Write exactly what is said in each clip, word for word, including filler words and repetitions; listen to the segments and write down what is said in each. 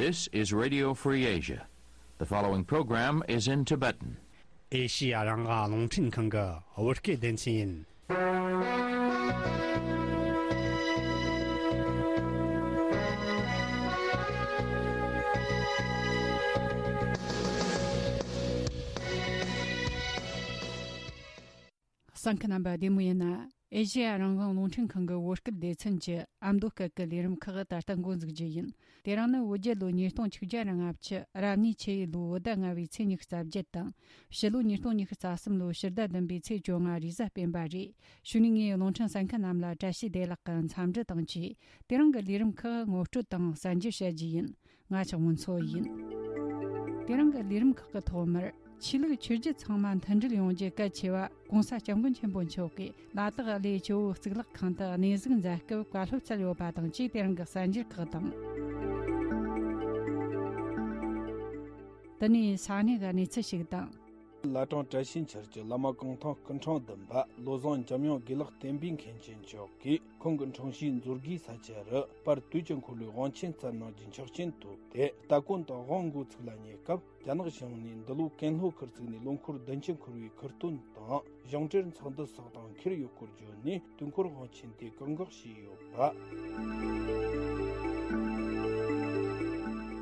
This is Radio Free Asia. The following program is in Tibetan. ཨེ་ཤི་ཡ་རང་དབང་རླུང་འཕྲིན་ཁང་གི་བོད་སྐད་སྡེ་ཚན་ཡིན། གསན་མཁན་རྣམ་པ་བདེ་མོ་ཡིན་ན། ཨེ་ཤེ་ཡ་རང་དབང་རླུང་འཕྲིན་ཁང་གི་བོད་སྐད་སྡེ་ཚན་གྱི་ཨ་མདོ་སྐད་ཀྱི་ལས་རིམ་ཁག་ད་ལྟ་འགོ་འཛུགས་རྒྱུ་ཡིན། དེ་རིང་ནི་བོད་རྒྱལ་ལོ་ཉིས་སྟོང་ཆིག་བརྒྱ་ར་ལྔ་བཅུ་རབ་གནས་ཆུ་ཡོས་ལོའི་བོད་ཟླ་ལྔ་བའི་ཚེས་ཉི་ཤུ་རྩ་བརྒྱད་དང་། ཕྱི་ལོ་ཉིས་སྟོང་ཉི་ཤུ་རྩ་གསུམ་ལོའི་ཕྱི་ཟླ་བདུན་པའི་ཚེས་བཅོ་ལྔ་རེས་གཟའ་སྤེན་པ་རེད། གཞུག་ནས་ངས་རླུང་འཕྲིན་གསན་མཁན་རྣམས་ལ་བཀྲ་ཤིས་བདེ་ལེགས་ཀྱི་འཚམས་འདྲི་དང་བཅས། དེ་རིང་གི་ལས་རིམ་ཁག་ངོ་སྤྲོད་དང་གསན་རྒྱུ་བྱ་རྒྱུ་ཡིན། ང་ཆགས་སྔོན་འཚོ་ཡིན། དེ་རིང་གི་ལས་རིམ་ཁག་གི་ཐོག་མར། ཆོས་ལུགས་ཆོས་བརྒྱུད་ཚང་མ་མཐུན་སྒྲིལ་ཡོང་རྒྱུ་གལ་ཆེ་བ། ༸གོང་ས་༸སྐྱབས་མགོན་ཆེན་པོ་མཆོག་གིས་ལ་དྭགས་གླེ་ཇོ་བོ་གཙུག་ལག་ཁང་དུ་གནས་གཟིགས་མཛད་སྐབས་བཀའ་སློབ་སྩལ་ཡོད་པ་དང་བཅས། དེ་རིང་གི་གསར་འགྱུར་ཁག་དང་། དེ་ནས་ས་གནས་ཀྱི་གནས་ཚུལ་ཞིག་དང་། བླ་བྲང་བཀྲ་ཤིས་འཁྱིལ་གྱི་བླ་མ་གུང་ཐང་སྐུ་ཕྲེང་བདུན་པ་བློ་བཟང་འཇམ་དབྱངས་དགེ་ལེགས་བསྟན་པའི་མཁན་ཆེན་མཆོག་གིས་ཁོང་གི་འཁྲུངས་གཞིས་མཛོད་དགེའི་ས་ཆ་རུ་པར་དུས་ཀྱི་འཁོར་ལོའི་དབང་ཆེན་སྩལ་གནང་རྒྱུའི་ཆོག་མཆན་ཐོབ་སྟེ། སྟ་གོན་དང་དབང་འགོ་ཚུགས་ལ་ཉེ་སྐབས། རྒྱ་ནག་གཞུང་ནས་འདི་ལོ་ཀན་ལྷོ་ཁུལ་བཙུགས་ནས་ལོ་འཁོར་བདུན་ཅུ་འཁོར་བའི་ཁུར་སྟོན་དང་གཞུང་འབྲེལ་ཚོགས་འདུ་སོགས་དང་འཁེལ་ཡོད་སྐོར་བརྗོད་ནས། དུས་འཁོར་དབང་ཆེན་དེ་བཀག་འགོག་བྱས་ཡོད་པ།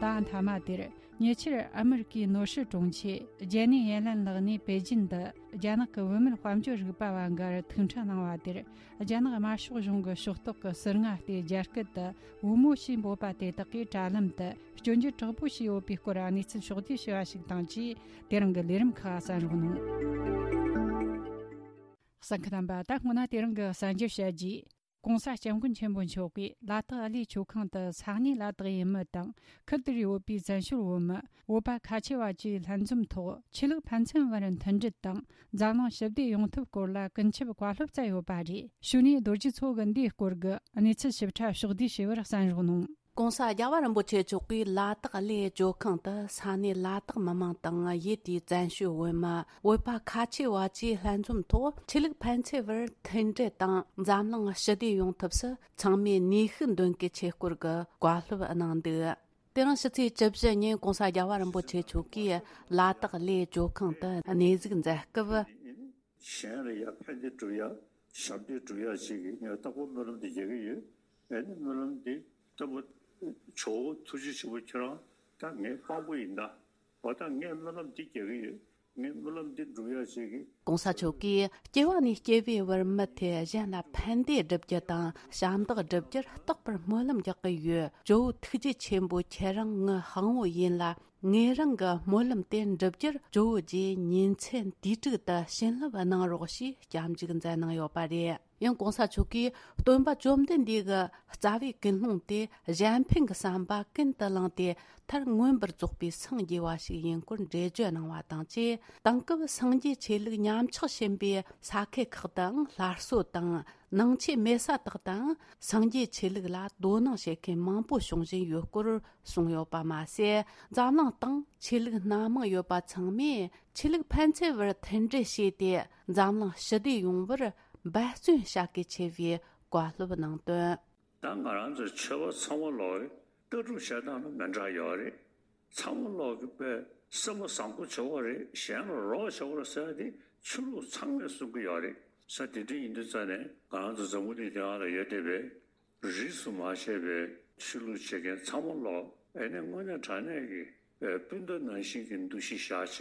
ད་མཐའ་མ་དེར། ཉེ་ཆར་ཨ་མི་རི་ཀའི་ནོར་སྲིད་དྲུང་ཆེ་ཇེ་ནི་ཡེ་ལན་ལགས་ནས་པེ་ཅིན་དུ་རྒྱ་ནག་གི་བུད་མེད་དཔལ་འབྱོར་རིག་པ་བ་འགའ་རུ་ཐུག་འཕྲད་གནང་བ་དེར། རྒྱ་ནག་དམར་ཤོག་གཞུང་གི་ཕྱོགས་གཏོགས་ཀྱི་ཟུར་ལྔ་སྟེ། རྒྱ་སྐད་དུ་བུ་མོ་ཞེས་འབོད་པ་དེ་དག་གིས་དྲ་ལམ་དུ་སྐྱོན་བརྗོད་དྲག་པོ་བྱས་ཡོད་པའི་སྐོར་གནས་ཚུལ་ཕྱོགས་བསྡུས་བྱས་པ་ཞིག་དང་བཅས། དེ་རིང་གི་ལས་རིམ་ཁག་གསན་རོགས་གནང་། གསན་མཁན་རྣམ་པ། ད་སྔོན་ན་དེ་རིང་གི་གསར་འགྱུར་བཤད་རྗེས། ༸གོང་ས་༸སྐྱབས་མགོན་ཆེན་པོ་མཆོག་གིས་ལ་དྭགས་གླེ་ཇོ་ཁང་དུ་ས་གནས་ལ་དྭགས་ཡུལ་མི་དང་ཁུལ་དེར་ཡོད་པའི་བཙན་བྱོལ་བོད་མི་བོད་པ་ཁ་ཆེ་བ་བཅས་ལྷན་འཛོམས་ཐོག་ཆོས་ལུགས་ཕན་ཚུན་བར་མཐུན་སྒྲིལ་དང་འཛམ་གླིང་ཞི་བདེ་ཡོང་ཐབས་སྐོར་ལ་ཀུན་ཁྱབ་བཀའ་སློབ་སྩལ་ཡོད་པ་རེད། གཞུག་ནས་རྡོ་རྗེ་མཚོ་གི་འདིའི་སྐོར་གྱི་གནས་ཚུལ་ཞིབ་ཕྲ་ཕྱོགས་བསྡུས་བྱས་པར་གསན་རོགས་གནང་། ༸གོང་ས་རྒྱལ་བ་རིན་པོ་ཆེ་མཆོག་གིས་ལ་དྭགས་གླེ་ཇོ་ཁང་དུ་ས་གནས་ལ་དྭགས་མི་མང་དང་ཡུལ་དེའི་བཙན་བྱོལ་བོད་མི་བོད་པ་ཁ་ཆེ་བ་བཅས་ལྷན་འཛོམས་ཐོག་ཆོས་ལུགས་ཕན་ཚུན་བར་མཐུན་སྒྲིལ་དང་འཛམ་གླིང་ཞི་བདེ་ཡོང་ཐབས་སུ་ཚང་མས་ནུས་ཤུགས་འདོན་གལ་ཆེ་སྐོར་གྱི་བཀའ་སློབ་གནང་འདུག་དེ་རིང་ཕྱི་ཚེས་བཅུ་བཞི་ཉིན་༸གོང་ས་རྒྱལ་བ་རིན་པོ་ཆེ་མཆོག་གིས་ལ་དྭགས་གླེ་ཇོ་ཁང་དུ་གནས་གཟིགས་མཛད་སྐབས། གཞན་ལ་ཡ་ཕན་བདེ་སྒྲུབ་ཡ། ཞབས་འདེགས་སྒྲུབ་ཡ་ཞིག་གི་ངས་རྟག་པར་སྨོན་ལམ་འདི་རྒྱག་གི་ཡོད། ཨེ་ནི་སྨོན་ལམ་འདི་ལྟ་བུ། ཇོ་བོ་ཐུགས་རྗེ་ཆེན་པོ་ཁྱེད་རང་ད་ངའི་དཔང་པོ་ཡིན་ད། འོ་ད་ངས་སྨོན་ལམ་འདི་རྒྱག་གི་ཡོད། ངས་སྨོན་ལམ་འདི་སྒྲུབ་ཡ་ཞིག་གི། ༸གོང་ས་མཆོག་གིས་སྐྱེ་བ་ནས་སྐྱེ་བའི་བར་མུ་མཐུད་གཞན་ལ་ཕན་བདེ་བསྒྲུབ་རྒྱུ་དང་ཞབས་འདེགས་སྒྲུབ་རྒྱུར་རྟག་པར་སྨོན་ལམ་རྒྱག་གི་ཡོད། ཇོ་བོ་ཐུགས་རྗེ་ཆེན་པོ་ཁྱེད་རང་ངའི་དཔང་པོ་ཡིན་ལ། ངེད་རང་གི་སྨོན་ལམ་དེ་འགྲུབ་རྒྱུར་ཇོ་བོ་རྗེ་ཉིན་མཚན་དུས་དྲུག་ཏུ་བྱིན་རླབས་གནང་རོགས་ཞེས་སྐྱབས་འཇུག་མཛད་གནང་ཡོད་པ་རེད། ཡང་༸གོང་ས་མཆོག་གིས་སྟོན་པ་བཅོམ་ལྡན་འདས་ཀྱི་རྩ་བའི་ཀུན་སློང་དེ་གཞན་ཕན་གྱི་བསམ་པ་ཀུན་ཏུ་བསླངས་ཏེ། མཐར་མངོན་པར་རྫོགས་པའི་སངས་རྒྱས་པ་ཞིག་ཡིན་སྐོར་འགྲེལ་བརྗོད་གནང་བ་དང་བཅས། དེང་སྐབས་སངས་རྒྱས་ཆོས་ལུགས་ཉམས་ཆག་ཕྱིན་པའི་ས་ཁུལ་ཁག་དུའང་སླར་གསོ་དང་། ནང་ཆོས་མེད་ས་དག་དང་སངས་རྒྱས་ཆོས་ལུགས་ལ་དོ་སྣང་བྱེད་མཁན་མང་པོ་བྱུང་བཞིན་ཡོད་སྐོར་གསུངས་ཡོད་པ་མ་ཟད། འཛམ་གླིང་སྟེང་ཆོས་ལུགས་སྣ་མང་ཡོད་པ་ཚང་མས་ཆོས་ལུགས་ཕན་ཚུན་བར་མཐུན་སྒྲིལ་བྱས་ཏེ། འཛམ་གླིང་ཞི་བདེ་ཡོང་བར་འབད་བརྩོན་བྱ་གལ་ཆེ་བའི་བཀའ་སློབ་གནང་དོན། ད་ང་རང་ཚོ་ཆོས་པ་ཚང་མ་ལོག་ལྟ་གྲུབ་བྱེད་སྟངས་ལ་མི་འདྲ་ཡོད་རེད། ཚང་མ་ལོག་གི་དཔེ་སེམས་པ་བཟང་པོ་བྱེད་དགོས་རེད། གཞན་ལ་རོགས་བྱེད་དགོས་རེད་ཟེར་ཡ་དེ་ཆོས་ལུགས་ཚང་མས་གསུང་གི་ཡོད་རེད། ས་དེ་འདྲ་ཡིན་དུས་ཙང་ནས་ང་རང་ཚོ་འཛམ་བུ་གླིང་དེ་ཡང་ལ་ཡོད་བསྡད་པའི་རིས་སུ་མ་ཆད་པའི་ཆོས་ལུགས་བྱེད་མཁན་ཚང་མ་ལོག་ཨེ་ནས་དངོས་གནས་དྲང་གནས་ཀྱི་སྤུན་ཟླ་ནང་བཞིན་གྱི་འདུ་ཤེས་བཞག་བྱས་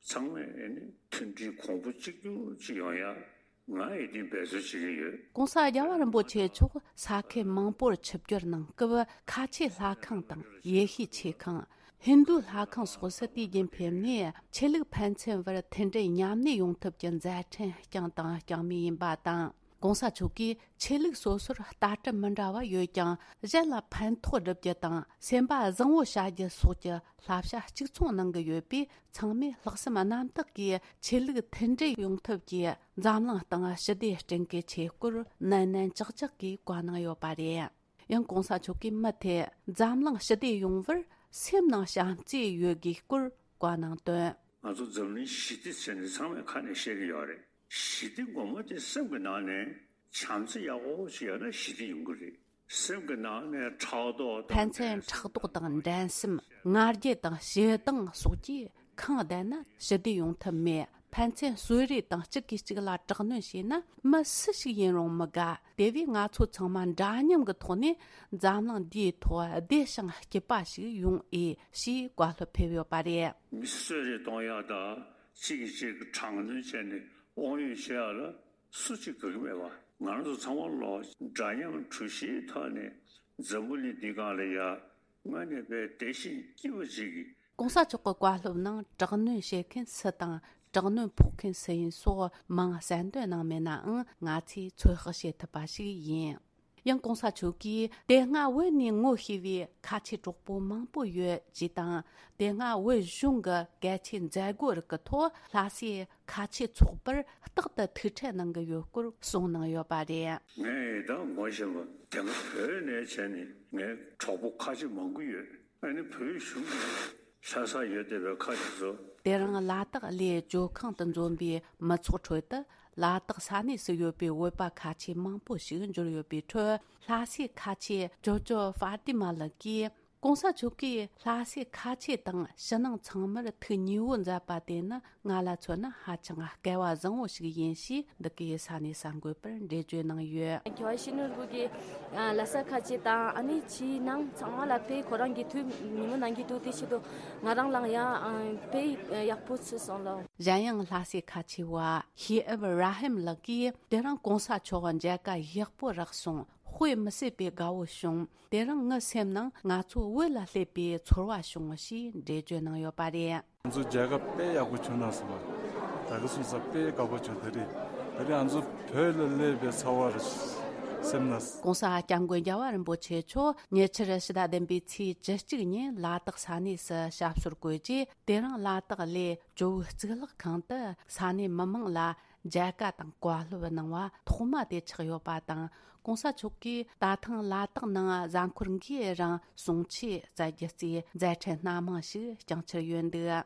ཚང་མས་ཨེ་ནས་མཐུན་སྒྲིལ་གོང་བུ་གཅིག་གྱུར་ཅིག་ཡོང་ཡ། ང་ཡི་དེ་འབད་རྩོལ་བྱེད་ཀྱི་ཡོད། ༸གོང་ས་རྒྱལ་བ་རིན་པོ་ཆེ་མཆོག་ས་ཁུལ་མང་པོར་ཆིབས་བསྒྱུར་གནང་སྐབས། ཁ་ཆེ་ལྷ་ཁང་དང་ཡེ་ཤུའི་ཆོས་ཁང་། ཧིན་རྡུའི་ལྷ་ཁང་སོགས་སུ་དུས་རྒྱུན་ཕེབས་ནས། ཆོས་ལུགས་ཕན་ཚུན་བར་མཐུན་སྒྲིལ་མཉམ་གནས་ཡོང་ཐབས་ཀྱི་མཛད་འཕྲིན་བསྐྱངས་དང་བསྐྱངས་མུས་ཡིན་པ་དང་། ༸གོང་ས་མཆོག་གིས་ཆོས་ལུགས་སོ་སོར་ལྟ་གྲུབ་མི་འདྲ་བ་ཡོད་ཀྱང་། གཞན་ལ་ཕན་ཐོགས་སྒྲུབ་རྒྱུ་དང་སེམས་པ་བཟང་བོ་བྱ་རྒྱུ་སོགས་ཀྱི་བསླབ་བྱ་གཅིག་མཚུངས་གནང་གི་ཡོད་པས། ཚང་མས་ལྷག་བསམ་རྣམ་དག་གིས་ཆོས་ལུགས་མཐུན་སྒྲིལ་ཡོང་ཐབས་ཀྱིས་འཛམ་གླིང་སྟེང་ཞི་བདེ་བསྐྲུན་གལ་ཆེ་སྐོར་ནན་ནན་ཅག་ཅག་གིས་བཀའ་གནང་ཡོད་པ་རེད། ཡང་༸གོང་ས་མཆོག་གིས་མུ་མཐུད་འཛམ་གླིང་ཞི་བདེ་ཡོང་བར་སེམས་ནང་བྱམས་བརྩེ་ཡོད་དགོས་སྐོར་བཀའ་གནང་དོན། ང་ཚོ་འཛམ་གླིང་ཞི་བདེ་ཟེར་ནས་ཚང་མས་ཁ་ནས་བཤད་ཀྱི་ཡོད་རེད། ཞི་བདེ་སྒོ་མོ་དེ་སེམས་ཀྱི་ནང་ནས་བྱམས་བརྩེ་ཡག་པོ་ཞིག་ཡོད་ན་ཞི་བདེ་ཡོང་གི་རེད། སེམས་ཀྱི་ནང་ནས་ཕྲག་དོག་དང་ཕན་ཚུན་འགྲན་སེམས། ཕྲག་དོག་དང་འགྲན་སེམས། ང་རྒྱལ་དང་ཞེ་སྡང་སོགས་ཀྱིས་ཁེངས་བསྡད་ན་ཞི་བདེ་ཡོང་ཐབས་མེད། ཕན་ཚུན་གསོད་རེས་དང་གཅིག་གིས་གཅིག་ལ་དྲག་གནོན་བྱས་ན་མི་སུ་ཞིག་ཡིན་རུང་མི་དགའ། དེ་བས་ང་ཚོ་ཚང་མ་འདྲ་མཉམ་གྱི་ཐོག་ནས་འཛམ་གླིང་འདིའི་ཐོག་བདེ་ཞིང་སྐྱིད་པ་ཞིག་ཡོང་ཨེ་ཞེས་བཀའ་སློབ་ཕེབས་ཡོད་པ་རེད། མི་གསོད་རེས་གཏོང་ཡག་དང་གཅིག་གིས་གཅིག་དྲག་གནོན་བྱས་ནས་དབང་ཡོད་བྱེད་ཡག་ལ་སུ་གཅིག་དགའ་གི་མེད་པ། ང་རང་ཚོ་ཚང་མ་ལོ་འདྲ་མཉམ་གྲོས་གཞིའི་ཐོག་ནས་འཛམ་བུ་གླིང་འདི་སྒང་ལ་ཡ་དངོས་གནས་དཔེ་བདེ་ཞིང་སྐྱིད་པོ་ཅིག་གི། གོང་ས་མཆོག་གི་བཀའ་སློབ་ནང་དྲག་གནོན་བྱེད་མཁན་སུ་དང་དྲག་གནོན་ཕོག་མཁན་སུ་ཡིན་སོགས་མིང་གསལ་འདོན་གནང་མེད་ནའང་ང་ཚོས་ཚོད་དཔག་བྱེད་ཐུབ་པ་ཞིག་ཡིན། ཡང་གོང་ས་མཆོག་གིས་དེ་སྔ་བོད་ནས་ངོ་ཤེས་པའི་ཁ་ཆེ་གྲོགས་པོ་མང་པོ་ཡོད་ཅེས་དང་། དེ་སྔ་བོད་གཞུང་གི་གལ་ཆེའི་མཛད་སྒོ་རིགས་ཀྱི་ཐོག་ལྷ་སའི་ཁ་ཆེ་ཚོགས་པར་རྟག་ཏུ་ཐུག་འཕྲད་གནང་གི་ཡོད་སྐོར་གསུངས་གནང་ཡོད་པ་རེད། ངས་ད་ངོ་ཤེས་པ་དེ་སྔ་བོད་ནས་བྱས་ནས་ངའི་གྲོགས་པོ་ཁ་ཆེ་མང་པོ་ཡོད། ཨ་ནི་བོད་གཞུང་གི་ལྷ་ས་ཡོད་བསྡད་པའི་ཁ་ཆེ་ཚོ། དེ་རིང་ལ་དྭགས་གླེ་ཇོ་ཁང་དུ་འཛོམས་པའི་མི་ཚོགས་ཁྲོད་དུ་ལ་དྭགས་ས་གནས་སུ་ཡོད་པའི་བོད་པ་ཁ་ཆེ་མང་པོ་ཞིག་འབྱོར་ཡོད་པའི་ཁྲོད། ལྷ་སའི་ཁ་ཆེ་ཇོ་ཇོ་ཧྥ་ཏི་མ་ལགས་ཀྱིས། གོང་ས་མཆོག་གིས་ལྷ་སའི་ཁ་ཆེ་དང་ཕྱི་ནང་ཚང་མར་ཐུགས་མཉེས་པོ་མཛད་པ་དེ་ནི་ང་ལ་མཚོན་ན་ཧ་ཅང་སྐལ་བ་བཟང་བོ་ཞིག་ཡིན་ཞེས་འདི་གའི་ས་གནས་གསར་འགོད་པར་འགྲེལ་བརྗོད་གནང་ཡོད། མཁས་པ་ཡིད་བཞིན་ནོར་བུ་གིས་ལྷ་ས་ཁ་ཆེ་དང་ཨ་ནི་ཕྱིའི་ནང་ཚང་མ་ལ་དཔེ་ཁོ་རང་གི་ཐུགས་མཉེས་པོ་གནང་གི་འདུག་དེ་ཆེད་དུ་ང་རང་ལའང་ཡང་དཔེ་ཡག་པོ་ཚུལ་སོང་ལོ། གཞན་ཡང་ལྷ་སའི་ཁ་ཆེ་བ་ཤེ་ཨབ་ར་ཧིམ་ལགས་ཀྱིས་དེ་རིང་གོང་ས་མཆོག་མཇལ་ཁ་ཡག་པོ་རག་སོང་། དཔེ་མི་སྲིད་པའི་དགའ་བོ་བྱུང་། དེ་རིང་ངའི་སེམས་ནང་ང་ཚོ་བོད་ལ་སླེབས་པའི་ཚོར་བ་བྱུང་ཞེས་འགྲེལ་བརྗོད་གནང་ཡོད་པ་རེད། ང་ཚོ་མཇལ་ཁ་དཔེ་ཡག་པོ་བྱུང་ན་སོང་བ། ད་ག་སོང་ས་དཔེ་དགའ་པོ་བྱུང་། དེ་རིང་དེ་རིང་ང་ཚོ་བོད་ལ་སླེབས་པའི་ཚོར་བ་རེད། སེམས་ན། གོང་ས་སྐྱབས་མགོན་རྒྱལ་བ་རིན་པོ་ཆེ་མཆོག་ཉེ་ཆར་ཕྱི་ཟླ་བདུན་པའི་ཚེས་བཅུ་གཅིག་ཉིན་ལ་དྭགས་ས་གནས་སུ་ཞབས་སོར་བཀོད་རྗེས། དེ་རིང་ལ་དྭགས་གླེ་ཇོ་བོའི་གཙུག་ལག་ཁང་དུ་ས་གནས་མི་མང་ལ་མཇལ་ཁ་དང་བཀའ་སློབ་གནང་བ་ཐོག་མ་དེ་ཆགས་ཡོད་པ་དང་། གོང་ས་མཆོག་གིས་ད་ཐེངས་ལ་དྭགས་ནང་གཟའ་འཁོར་འགའི་རིང་གསུང་ཆོས་སྩལ་རྒྱུ་གཙོས་མཛད་འཕྲིན་སྣ་མང་ཞིག་བསྐྱངས་འཆར་ཡོད་འདུག།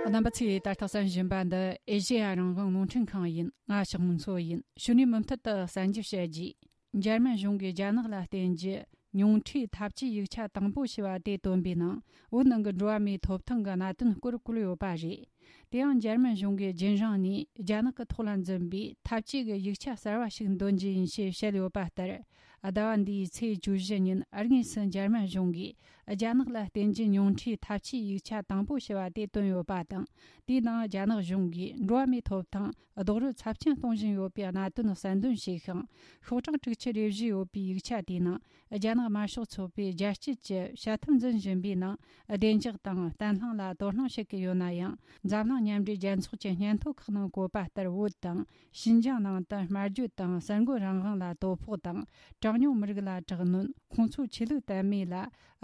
རྣམ་པ་ཚོས་ད་ལྟ་གསན་བཞིན་པ་འདི་ཨེ་ཤེ་ཡ་རང་དབང་རླུང་འཕྲིན་ཁང་ཡིན། ང་ཞག་མུན་མཚོ་ཡིན། ཕྱི་ནས་མུ་མཐུད་དུ་གསན་རྒྱུ་བཤད་རྒྱུ། འཇར་མན་གཞུང་གིས་རྒྱ་ནག་ལ་བརྟེན་རྒྱུ་ཉུང་འཕྲིའི་འཐབ་ཇུས་ཡིག་ཆ་དང་པོ་ཞེས་པ་དེ་བཏོན་པའི་ནང་བོད་ནང་གི་འགྲོ་བ་མིའི་ཐོབ་ཐང་གི་གནད་དོན་སྐོར་བཀོད་ཡོད་པ་རེད། དེ་ཡང་འཇར་མན་གཞུང་གིས་རྒྱུན་རིང་ནས་རྒྱ་ནག་གི་ཐོག་ལ་འཛིན་པའི་འཐབ་ཇུས་ཀྱི་ཡིག་ཆ་གསར་བ་ཞིག་འདོན་རྒྱུ་ཡིན་ཞེས་བཤད་ཡོད་པ་ལྟར། ཟླ་བ་འདིའི་ཚེས་བཅུ་བཞི་ཉིན་དངོས་སུ་འཇར་མན་གཞུང་གིས་རྒྱ་ནག་ལ་བརྟེན་རྒྱུ་ཉུང་འཕྲིའི་འཐབ་ཇུས་ཡིག་ཆ་དང་པོ་ཞེས་པ་དེ་བཏོན་ཡོད་པ་དང་། དེའི་ནང་རྒྱ་ནག་གཞུང་གིས་འགྲོ་བ་མིའི་ཐོབ་ཐང་རྡོག་རོལ་ཚབས་ཆེན་གཏོང་བཞིན་ཡོད་པའི་གནད་དོན་གསལ་འདོན་བྱས་ཤིང་། ཤོག་གྲངས་དྲུག་ཅུ་རེ་བཞི་ཡོད་པའི་ཡིག་ཆ་དེའི་ནང་། རྒྱ་ནག་དམར་ཤོག་ཚོགས་པས་རྒྱལ་སྤྱི་གི་བྱ་ཐབས་འཛིན་བཞིན་པའི་ནང་བདེ་འཇགས་དང་བརྟན་ལྷིང་ལ་དོ་སྣང་བྱེད་ཀྱི་ཡོད་ན་ཡང་། འཛམ་གླིང་མཉམ་འབྲེལ་རྒྱལ་ཚོགས་ཀྱི་སྙན་ཐོ་ཁག་ནང་བཀོད་པ་ལྟར། བོད་དང་ཞིན་ཅང་ནང་དུ་སྨྲ་བརྗོད་དང་གསར་འགོད་རང་དབང་ལ་དོ་ཕོག་དང་། གྲངས་ཉུང་མི་རིགས་ལ་དྲག་གནོན། ཁོང་ཚོའི་ཆོས་ལུགས་དད་མོས་ལ་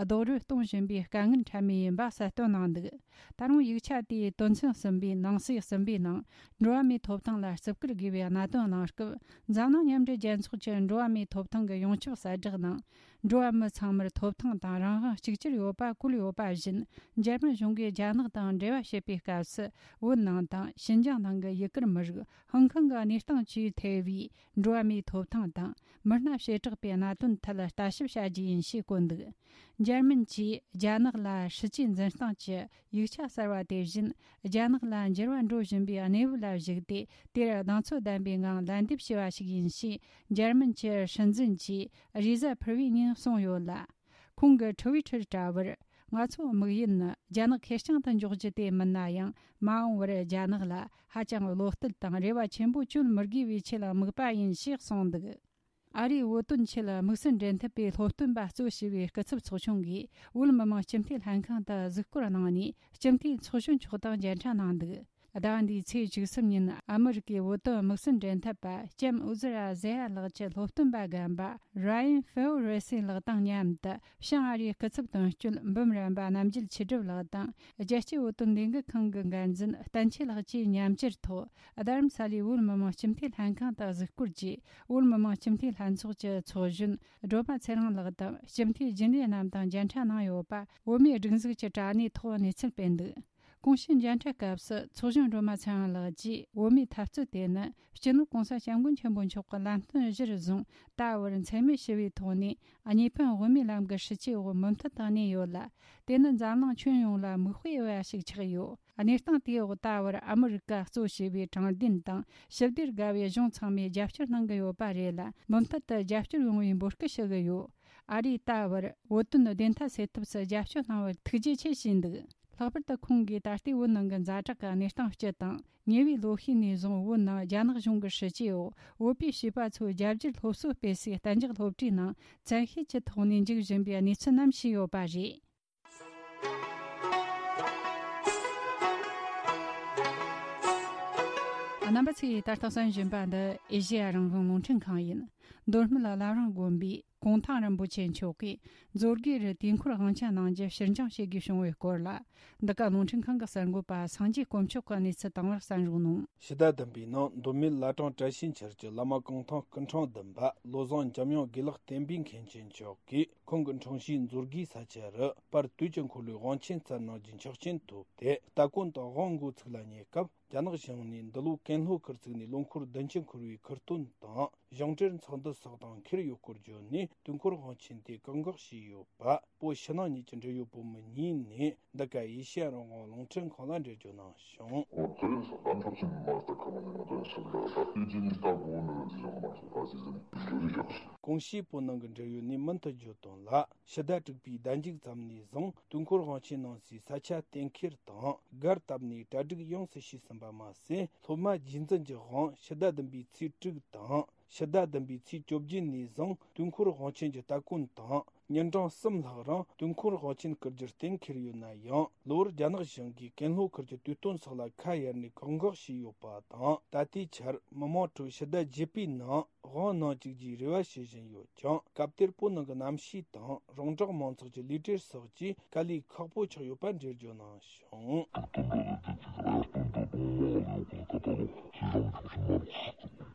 རྡོག་རོལ་གཏོང་བཞིན་པའི་དཀའ་ངལ་འཕྲད་མུས་ཡིན་པ་གསལ་སྟོན་གནང་འདུག། ད་རུང་ཡིག་ཆ་དེའི་དོན་ཚན་གསུམ་པའི་ནང་གསེས་གསུམ་པའི་ནང་། འགྲོ་བ་མིའི་ཐོབ་ཐང་ལ་བརྩི་བཀུར་དགོས་པའི་གནད་དོན་གནང་སྐབས། འཛམ་གླིང་མཉམ་འབྲེལ་རྒྱལ་ཚོགས་ཀྱི་འགྲོ་བ་མིའི་ཐོབ་ཐང་གི་ཡོངས་ཁྱབ་གསལ་བསྒྲགས་ནང་། འགྲོ་བ་མི་ཚང་མར་ཐོབ་ཐང་དང་རང་དབང་གཅིག་གྱུར་ཡོད་པ་བཀོད་ཡོད་པ་བཞིན། འཇར་མན་གཞུང་གིས་རྒྱ་ནག་དང་འབྲེལ་བ་བྱེད་པའི་སྐབས་སུ། བོད་ནང་དང་ཞིན་ཅང་ནང་གི་ཡུ་གུར་མི་རིགས། ཧང་ཀང་གི་གནས་སྟངས་བཅས་ཐེ་བའི་འགྲོ་བ་མིའི་ཐོབ་ཐང་དང་མི་སྣ་བྱེ་བྲག་པའི་གནད་དོན་ཐད་ལ་ལྟ་ཞིབ་བྱ་རྒྱུ་ཡིན་ཞེས་བཀོད་འདུག། འཇར་མན་གྱིས་རྒྱ་ནག་ལ་སྲིད་ཇུས་འཛིན་སྟངས་ཀྱི་ཡིག་ཆ་གསར་བ་དེ་བཞིན། རྒྱ་ནག་ལ་འགྱུར་བ་འགྲོ་བཞིན་པའི་གནས་བབ་ལ་གཞིགས་ཏེ། དེར་གདེང་ཚོད་ལྡན་པའི་ངང་ལན་འདེབས་བྱས་པ་ཞིག་ཡིན་ཞེས། འཇར་མན་གྱི་སྲིད་འཛིན་གྱིས་རེས་གཟའ་ཕུར་བུའི་ཉིན་གསུངས་ཡོད་ལ། ཁོང་གི་ཊུ་ཝི་ཊར་དྲ་བར། ང་ཚོའི་དམིགས་ཡུལ་ནི་རྒྱ་ནག་ཁེར་རྐྱང་དུ་འཇོག་རྒྱུ་དེ་མིན་ན་ཡང་། མ་འོངས་པར་རྒྱ་ནག་ལ་ཧ་ཅང་བློ་གཏད་དང་རེ་བ་ཆེན་པོ་བཅོལ་མི་དགོས་པའི་ཆེད་དམིགས་པ་ཡིན་ཞེས་གསུངས་འདུག། ཨ་རིའི་བོད་དོན་ཆེད་དམིགས་བསལ་འབྲེལ་མཐུད་པའི་སློབ་སྟོན་པ་གཙོས་བྱས་པའི་སྐུ་ཚབ་ཚོགས་ཆུང་གིས་བོད་མི་མང་སྤྱི་འཐུས་ལྷན་ཁང་དུ་གཟིགས་སྐོར་གནང་ནས། སྤྱི་འཐུས་ཚོགས་གཞོན་མཆོག་དང་མཇལ་འཕྲད་གནང་འདུག། ཟླ་བ་འདིའི་ཚེས་བཅུ་གསུམ་ཉིན་ཨ་མི་རི་ཀའི་བོད་དོན་དམིགས་བསལ་འབྲེལ་མཐུད་པ་ལྕམ་ཨུ་ཛི་ར་ཟེ་ཡ་ལགས་ཀྱི་སློབ་སྟོན་པ་རྒན་པ་ར་ཡན་ཧྥེའོ་རེ་སི་ལགས་དང་མཉམ་དུ། བྱང་ཨ་རིའི་སྐུ་ཚབ་དོན་གཅོད་འབུམ་རམས་པ་རྣམ་རྒྱལ་ཆོས་སྒྲུབ་ལགས་དང་། རྒྱལ་སྤྱིའི་བོད་དོན་ལས་འགུལ་ཁང་གི་འགན་འཛིན་བསྟན་ཆོས་ལགས་བཅས་མཉམ་ཞུགས་ཐོག། རྡ་རམ་ས་ལའི་བོད་མི་མང་སྤྱི་འཐུས་ལྷན་ཁང་དུ་གཟིགས་སྐོར་གྱིས། བོད་མི་མང་སྤྱི་འཐུས་ལྷན་ཚོགས་ཀྱི་ཚོགས་གཞོན་སྒྲོལ་མ་ཚེ་རིང་ལགས་དང་། སྤྱི་འཐུས་རྒྱུན་ལས་རྣམས་དང་མཇལ་འཕྲད་གནང་ཡོད་པ། བོད་མིའི་སྒྲིག་འཛུགས་ཀྱི་དྲ་གནས་ཐོག་གནས་ཚུལ་སྤེལ་འདུག། གོང་ཞུས་མཇལ་འཕྲད་སྐབས་སུ་ཚོགས་གཞོན་སྒྲོལ་མ་ཚེ་དབང་ལགས་ཀྱིས་བོད་མིའི་འཐབ་རྩོད་དེ་ནི་སྤྱི་ནོར་༸གོང་ས་༸སྐྱབས་མགོན་ཆེན་པོ་མཆོག་གི་ལམ་སྟོན་གཞིར་བཟུང་ད་བར་འཚེ་མེད་ཞི་བའི་ཐོག་ནས་གཉིས་ཕན་དབུ་མའི་ལམ་གྱི་སྲིད་བྱུས་འོག་མུ་མཐུད་དུ་གནས་ཡོད་ལ། དེ་ནི་འཛམ་གླིང་ཁྱོན་ཡོངས་ལ་མིག་དཔེ་འོས་པ་ཞིག་ཆགས་ཡོད། གནས་སྟངས་དེའི་འོག་ད་བར་ཨ་མི་རི་ཀ་གཙོ་བྱས་པའི་དྲང་བདེན་དང་ཞི་བདེར་དགའ་བའི་གཞུང་ཚང་མས་རྒྱབ་སྐྱོར་གནང་གི་ཡོད་པ་རེད་ལ། མུ་མཐུད་དུ་རྒྱབ་སྐྱོར་ཡོང་བའི་འབོད་སྐུལ་ཞུ་གི་ཡོད། ཨ་རིས་ད་བར་བོད་དོན་བདེན་མཐའ་སེལ་ཐབས་སུ་རྒྱབ་སྐྱོར་གནང་བར་ཐུགས་རྗེ་ཆེ་ཞུས་འདུག། ལྷག་པར་དུ་ཁོང་གིས་ད་ལྟའི་བོད་ནང་གི་ཛ་དྲག་གི་གནས་སྟངས་སྤྱི་དང་། ཉེ་བའི་ལོ་ཤས་ནས་བཟུང་བོད་ནང་རྒྱ་ནག་གཞུང་གི་སྲིད་བྱུས་འོག་བོད་པའི་བྱིས་པ་ཚོའི་རྒྱ་སྒྱུར་སློབ་གསོ་སྤེལ་སའི་གཏན་འཇགས་སློབ་གྲྭའི་ནང་བཙན་ཤེད་ཀྱི་ཐོག་ནས་འཇུག་བཞིན་པའི་གནས་ཚུལ་རྣམས་ཞུས་ཡོད་པ་རེད། རྣམ་པ་ཚོས་ད་ལྟ་གསན་བཞིན་པ་འདི་ཨེ་ཤེ་ཡ་རང་དབང་རླུང་འཕྲིན་ཁང་ཡིན། མདོ་སྨད་བླ་བྲང་དགོན་པའི་གུང་ཐང་རིན་པོ་ཆེ་མཆོག་གིས་མཛོད་དགེ་རུ་དུས་འཁོར་དབང་ཆེན་གནང་རྒྱུ་ཕྱིར་འགྱངས་བྱེད་དགོས་བྱུང་བའི་སྐོར་ལ། འདི་ག་རླུང་འཕྲིན་ཁང་གི་གསར་འགོད་པ་སངས་རྒྱས་དཀོན་མཆོག་གིས་གནས་ཚུལ་དང་པོར་གསན་རོགས་གནང་། ཕྱི་ཟླ་བདུན་པའི་ནང་མདོ་སྨད་བླ་བྲང་བཀྲ་ཤིས་འཁྱིལ་གྱི་བླ་མ་གུང་ཐང་སྐུ་ཕྲེང་བདུན་པ་བློ་བཟང་འཇམ་དབྱངས་དགེ་ལེགས་བསྟན་པའི་མཁན་ཆེན་མཆོག་གིས་ཁོང་གི་འཁྲུངས་གཞིས་མཛོད་དགེའི་ས་ཆ་རུ་པར་དུས་ཀྱི་འཁོར་ལོའི་དབང་ཆེན་སྩལ་གནང་རྒྱུའི་ཆོག་མཆན་ཐོབ་སྟེ། སྟ་གོན་དང་དབང་མགོ་ཚུགས་ལ་ཉེ་སྐབས། རྒྱ་ནག་གཞུང་ནས་འདི་ལོ་ཀན་ལྷོ་ཁུལ་བཙུགས་ནས་ལོ་འཁོར་བདུན་ཅུ་འཁོར་བའི་ཁུར་སྟོན་དང་གཞུང་འབྲེལ་ཚོགས་འདུ་སོགས་དང་འཁེལ་ཡོད་སྐོར་བརྗོད་ནས། དུས་འཁོར་དབང་ཆེན་དེ་བཀག་འགོག་བྱས་ཡོད་པ། བོད་ཕྱི་ནང་གཉིས་ཀྱི་འབྲེལ་ཡོད་བུ་མོ་གཉིས་ནས་འདི་ག་ཨེ་ཤེ་ཡ་རང་དབང་རླུང་འཕྲིན་ཁང་ལ་འགྲེལ་བརྗོད་གནང་བྱུང་། ཨོ་དེ་རིང་སོ་ད་འཁྲབ་ཆེན་མ་ལྟ་ཁ་མ་ནས་ང་ཚོ་ཡང་སེམས་ལ་ད་ལྟའི་རྗེས་ནས་ལྟ་དགོས་ནི་རེད་ཟེར་མ་སོང་ད་ཟེར་ཟེར་ནས་འགྲོ་རིགས་ཡག་སོང་། གོང་ཞུས་བོད་ནང་གི་འབྲེལ་ཡོད་ནས་མུ་མཐུད་བརྗོད་དོན་ལ། ཕྱི་ཟླ་དྲུག་པའི་ཟླ་མཇུག་ཙམ་ནས་བཟུང་དུས་འཁོར་དབང་ཆེན་གནང་སའི་ས་ཆ་གཏན་འཁེལ་དང་སྒར་བཏབ་ནས་གྲ་སྒྲིག་ཡོངས་སུ་བྱས་ཟིན་པ་མ་ཟད། སློབ་མ་རྗེས་འཛིན་གྱི་དབང་ཕྱི་ཟླ་བདུན་པའི་ཚེས་དྲུག་དང་ཕྱི་ཟླ་བདུན་པའི་ཚེས་བཅོ་བརྒྱད་ནས་བཟུང་དུས་འཁོར་དབང་ཆེན་གྱི་སྟ་གོན་དང་། ཉིན་གྲངས་གསུམ་ལྷག་རིང་དུས་འཁོར་དབང་ཆེན་བསྐུར་རྒྱུར་གཏན་འཁེལ་ཡོད་ན་ཡང་། ལོ་བར་རྒྱ་ནག་གཞུང་གིས་ཀན་ལྷོ་ཁུལ་གྱི་དུས་སྟོན་སོགས་ལ་ཁ་གཡར་ནས་བཀག་འགོག་བྱས་ཡོད་པ་དང་། ད་ལྟའི་ཆར་མི་མང་ཁྲོད་ཕྱི་ཟླ་བརྒྱད་པའི་ནང་དབང་གནང་བཅུག་རྒྱུའི་རེ་བ་བྱེད་བཞིན་ཡོད་ཀྱང་། སྐབས་དེར་བོད་ནང་གི་གནམ་གཤིས་དང་རོང་འབྲོག་མང་ཚོགས་ཀྱི་ལུས་བྲེལ་སོགས་ཀྱིས་དཀའ་ལས་ཁག་པོ་ཆགས་ཡོད་པ་འགྲེལ་བརྗོད་གནང་བྱུང་།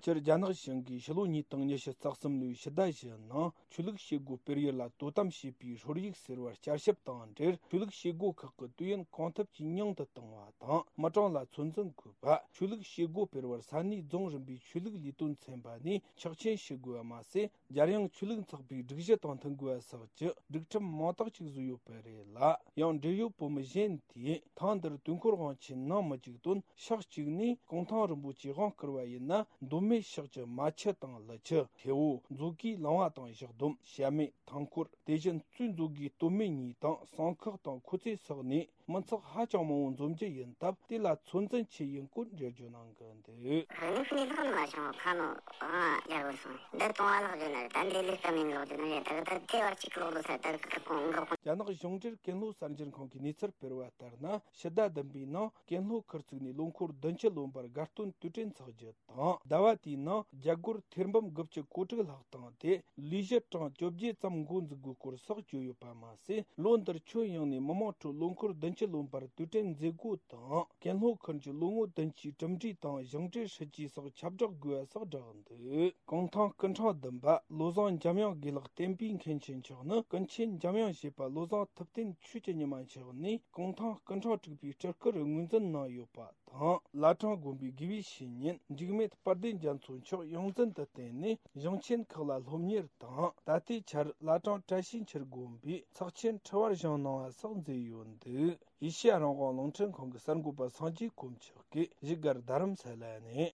སྤྱིར་རྒྱ་ནག་གཞུང་གིས་ཕྱི་ལོ་ཉིས་སྟོང་ཉི་ཤུ་རྩ་གསུམ་ལོའི་ཕྱི་ཟླ་བཞི་ནང་ཆོས་ལུགས་བྱེད་སྒོ་སྤེལ་ཡུལ་ལ་དོ་དམ་བྱེད་པའི་ཧྲོལ་ཡིག་ཟེར་བར་བསྐྱར་ཞིབ་དང་འབྲེལ། ཆོས་ལུགས་བྱེད་སྒོ་ཁག་གི་དུས་ཡུན་གང་ཐུབ་ཀྱིས་ཉུང་དུ་གཏོང་བ་དང་། མི་གྲངས་ལ་ཚོད་འཛིན་དགོས་པ། ཆོས་ལུགས་བྱེད་སྒོ་སྤེལ་བར་ས་གནས་རྫོང་རིམ་པའི་ཆོས་ལུགས་ལས་དོན་ཚན་པ་ནས་ཆོག་མཆན་ཞུ་དགོས་པ་མ་ཟད། རྒྱལ་ཡོངས་ཆོས་ལུགས་ཚོགས་པའི་སྒྲིག་གཞི་དང་མཐུན་དགོས་པ་སོགས་ཀྱི་སྒྲིག་ཁྲིམས་མང་དག་ཅིག་བཟོས་ཡོད་པ་རེད་ལ། ཡང་འབྲེལ་ཡོད་བུ་མོ་གཞན་དེས་ཐེངས་འདིར་དུས་འཁོར་དབང་ཆེན་གནང་མི་བཅུག་དོན། ཕྱོགས་གཅིག་ནས་གུང་ཐང་རིན་པོ་ཆེའི་དབང་བསྐུར་བ་ཡིན་ན། མདོ་སྨད་ཕྱོགས་ཀྱི་རྨ་ཆུ་དང་ཀླུ་ཆུ། ཐེ་བོ། མཛོད་དགེའི་ལུང་བ་དང་ཞག་སྡོམ། བྱ་སྨད། ཐང་འཁོར། དེ་བཞིན་གཙོས་མཛོད་དགེའི་སྟོད་སྨད་གཉིས་དང་། བསང་ཁོག་དང་ཁོ་ཚེ་སོགས་ནས་མི་ཚོགས་ཧ་ཅང་མང་བོ་འཛོམས་རྒྱུ་ཡིན་སྟབས། དེ་ལ་ཚོད་འཛིན་བྱས་ཡིན་སྐོར་འགྲེལ་བརྗོད་གནང་གི་འདུག། རིག་གནས་ལྷག་མ་བྱུང་ཁ་ནོ་ཨང་རྒྱལ་པོ་སོང་། འདི་གཏོང་བ་ལག་བརྗོད་ན་རེད། ད་འདི་ལས་ཀ་མིན་ལག་བརྗོད་ན་རེད། ད་ད་དེ་བར་གཅིག་ལོག་ལོ་ས་ད་ཁ་ཁོང་འགག་ཁོང་། རྒྱ་ནག་གཞུང་འབྲེལ་ཀན་ལྷོ་གསར་འགྱུར་ཁང་གིས་གནས་ཚུལ་སྤེལ་བ་ལྟར་ན། ཕྱི་ཟླ་བདུན་པའི་ནང་ཀན་ལྷོ་ཁུལ་བཙུགས་ནས་ལོ་འཁོར་བདུན་ཅུ་ལོན་པར་དགའ་སྟོན་དུས་དྲན་འཚོགས་རྒྱུ་དང་། ཟླ་བ་དེའི་ནང་རྒྱ་སྒོར་ཐེར་འབུམ་དགུ་བཅུ་གོ་དྲུག་ལྷག་བཏང་སྟེ། ལས་གཞི་གྲངས་བཅོ་བརྒྱད་ཙམ་འགོ་འཛུགས་དགོས་སྐོར་སོགས་བརྗོད་ཡོད་པ་མ་ཟད། ལོ་འདིར་ཁྱོན་ཡོངས་ནས་མི་མང་ཁྲོད་ལོ་འཁོར་བདུན་ཅུ་ལོན་པར་དུས་དྲན་མཛད་སྒོ་དང་། ཀན་ལྷོ་ཁུལ་གྱི་ལོ་ངོ་བདུན་ཅུའི་གྲུབ་འབྲས་དང་གཞུང་འབྲེལ་སྲིད་ཇུས་སོགས་ཁྱབ་བསྒྲགས་དགོས་པ་སོགས་བསྒྲགས་འདུག། གུང་ཐང་སྐུ་ཕྲེང་བདུན་པ་བློ་བཟང་འཇམ་དབྱངས་དགེ་ལེགས་བསྟན་པའི་མཁན་ཆེན་མཆོག་ནི་ཀུན་མཁྱེན་འཇམ་དབྱངས་བཞད་པ་བློ་བཟང་ཐུབ་བསྟན་ཆོས་ཀྱི་ཉི་མ་མཆོག་ནས་གུང་ཐང་སྐུ་ཕྲེང་དྲུག་པའི་སྤྲུལ་སྐུར་ངོས་འཛིན་གནང་ཡོད་པ་དང་། བླ་བྲང་དགོན་པའི་དགེ་བའི་བཤེས་གཉེན་འཇིགས་མེད་དཔལ་ལྡན་རྒྱ་མཚོ་མཆོག་ཡོངས་འཛིན་དུ་བསྟེན་ནས་གཞུང་ཆེན་ཁག་ལ་སློབ་གཉེར་དང་། ད་ལྟའི་ཆར་བླ་བྲང་བཀྲ་ཤིས་འཁྱིལ་དགོན་པའི་ཚོགས་ཆེན་ཁྲི་བར་བཞེངས་གནང་བ་སོགས་མཛད་ཡོད་འདུག། ཨེ་ཤེ་ཡ་རང་དབང་རླུང་འཕྲིན་ཁང་གི་གསར་འགོད་པ་སངས་རྒྱས་དཀོན་མཆོག་གིས་བཞུགས་སྒར་རྡ་རམ་ས་ལ་ནས།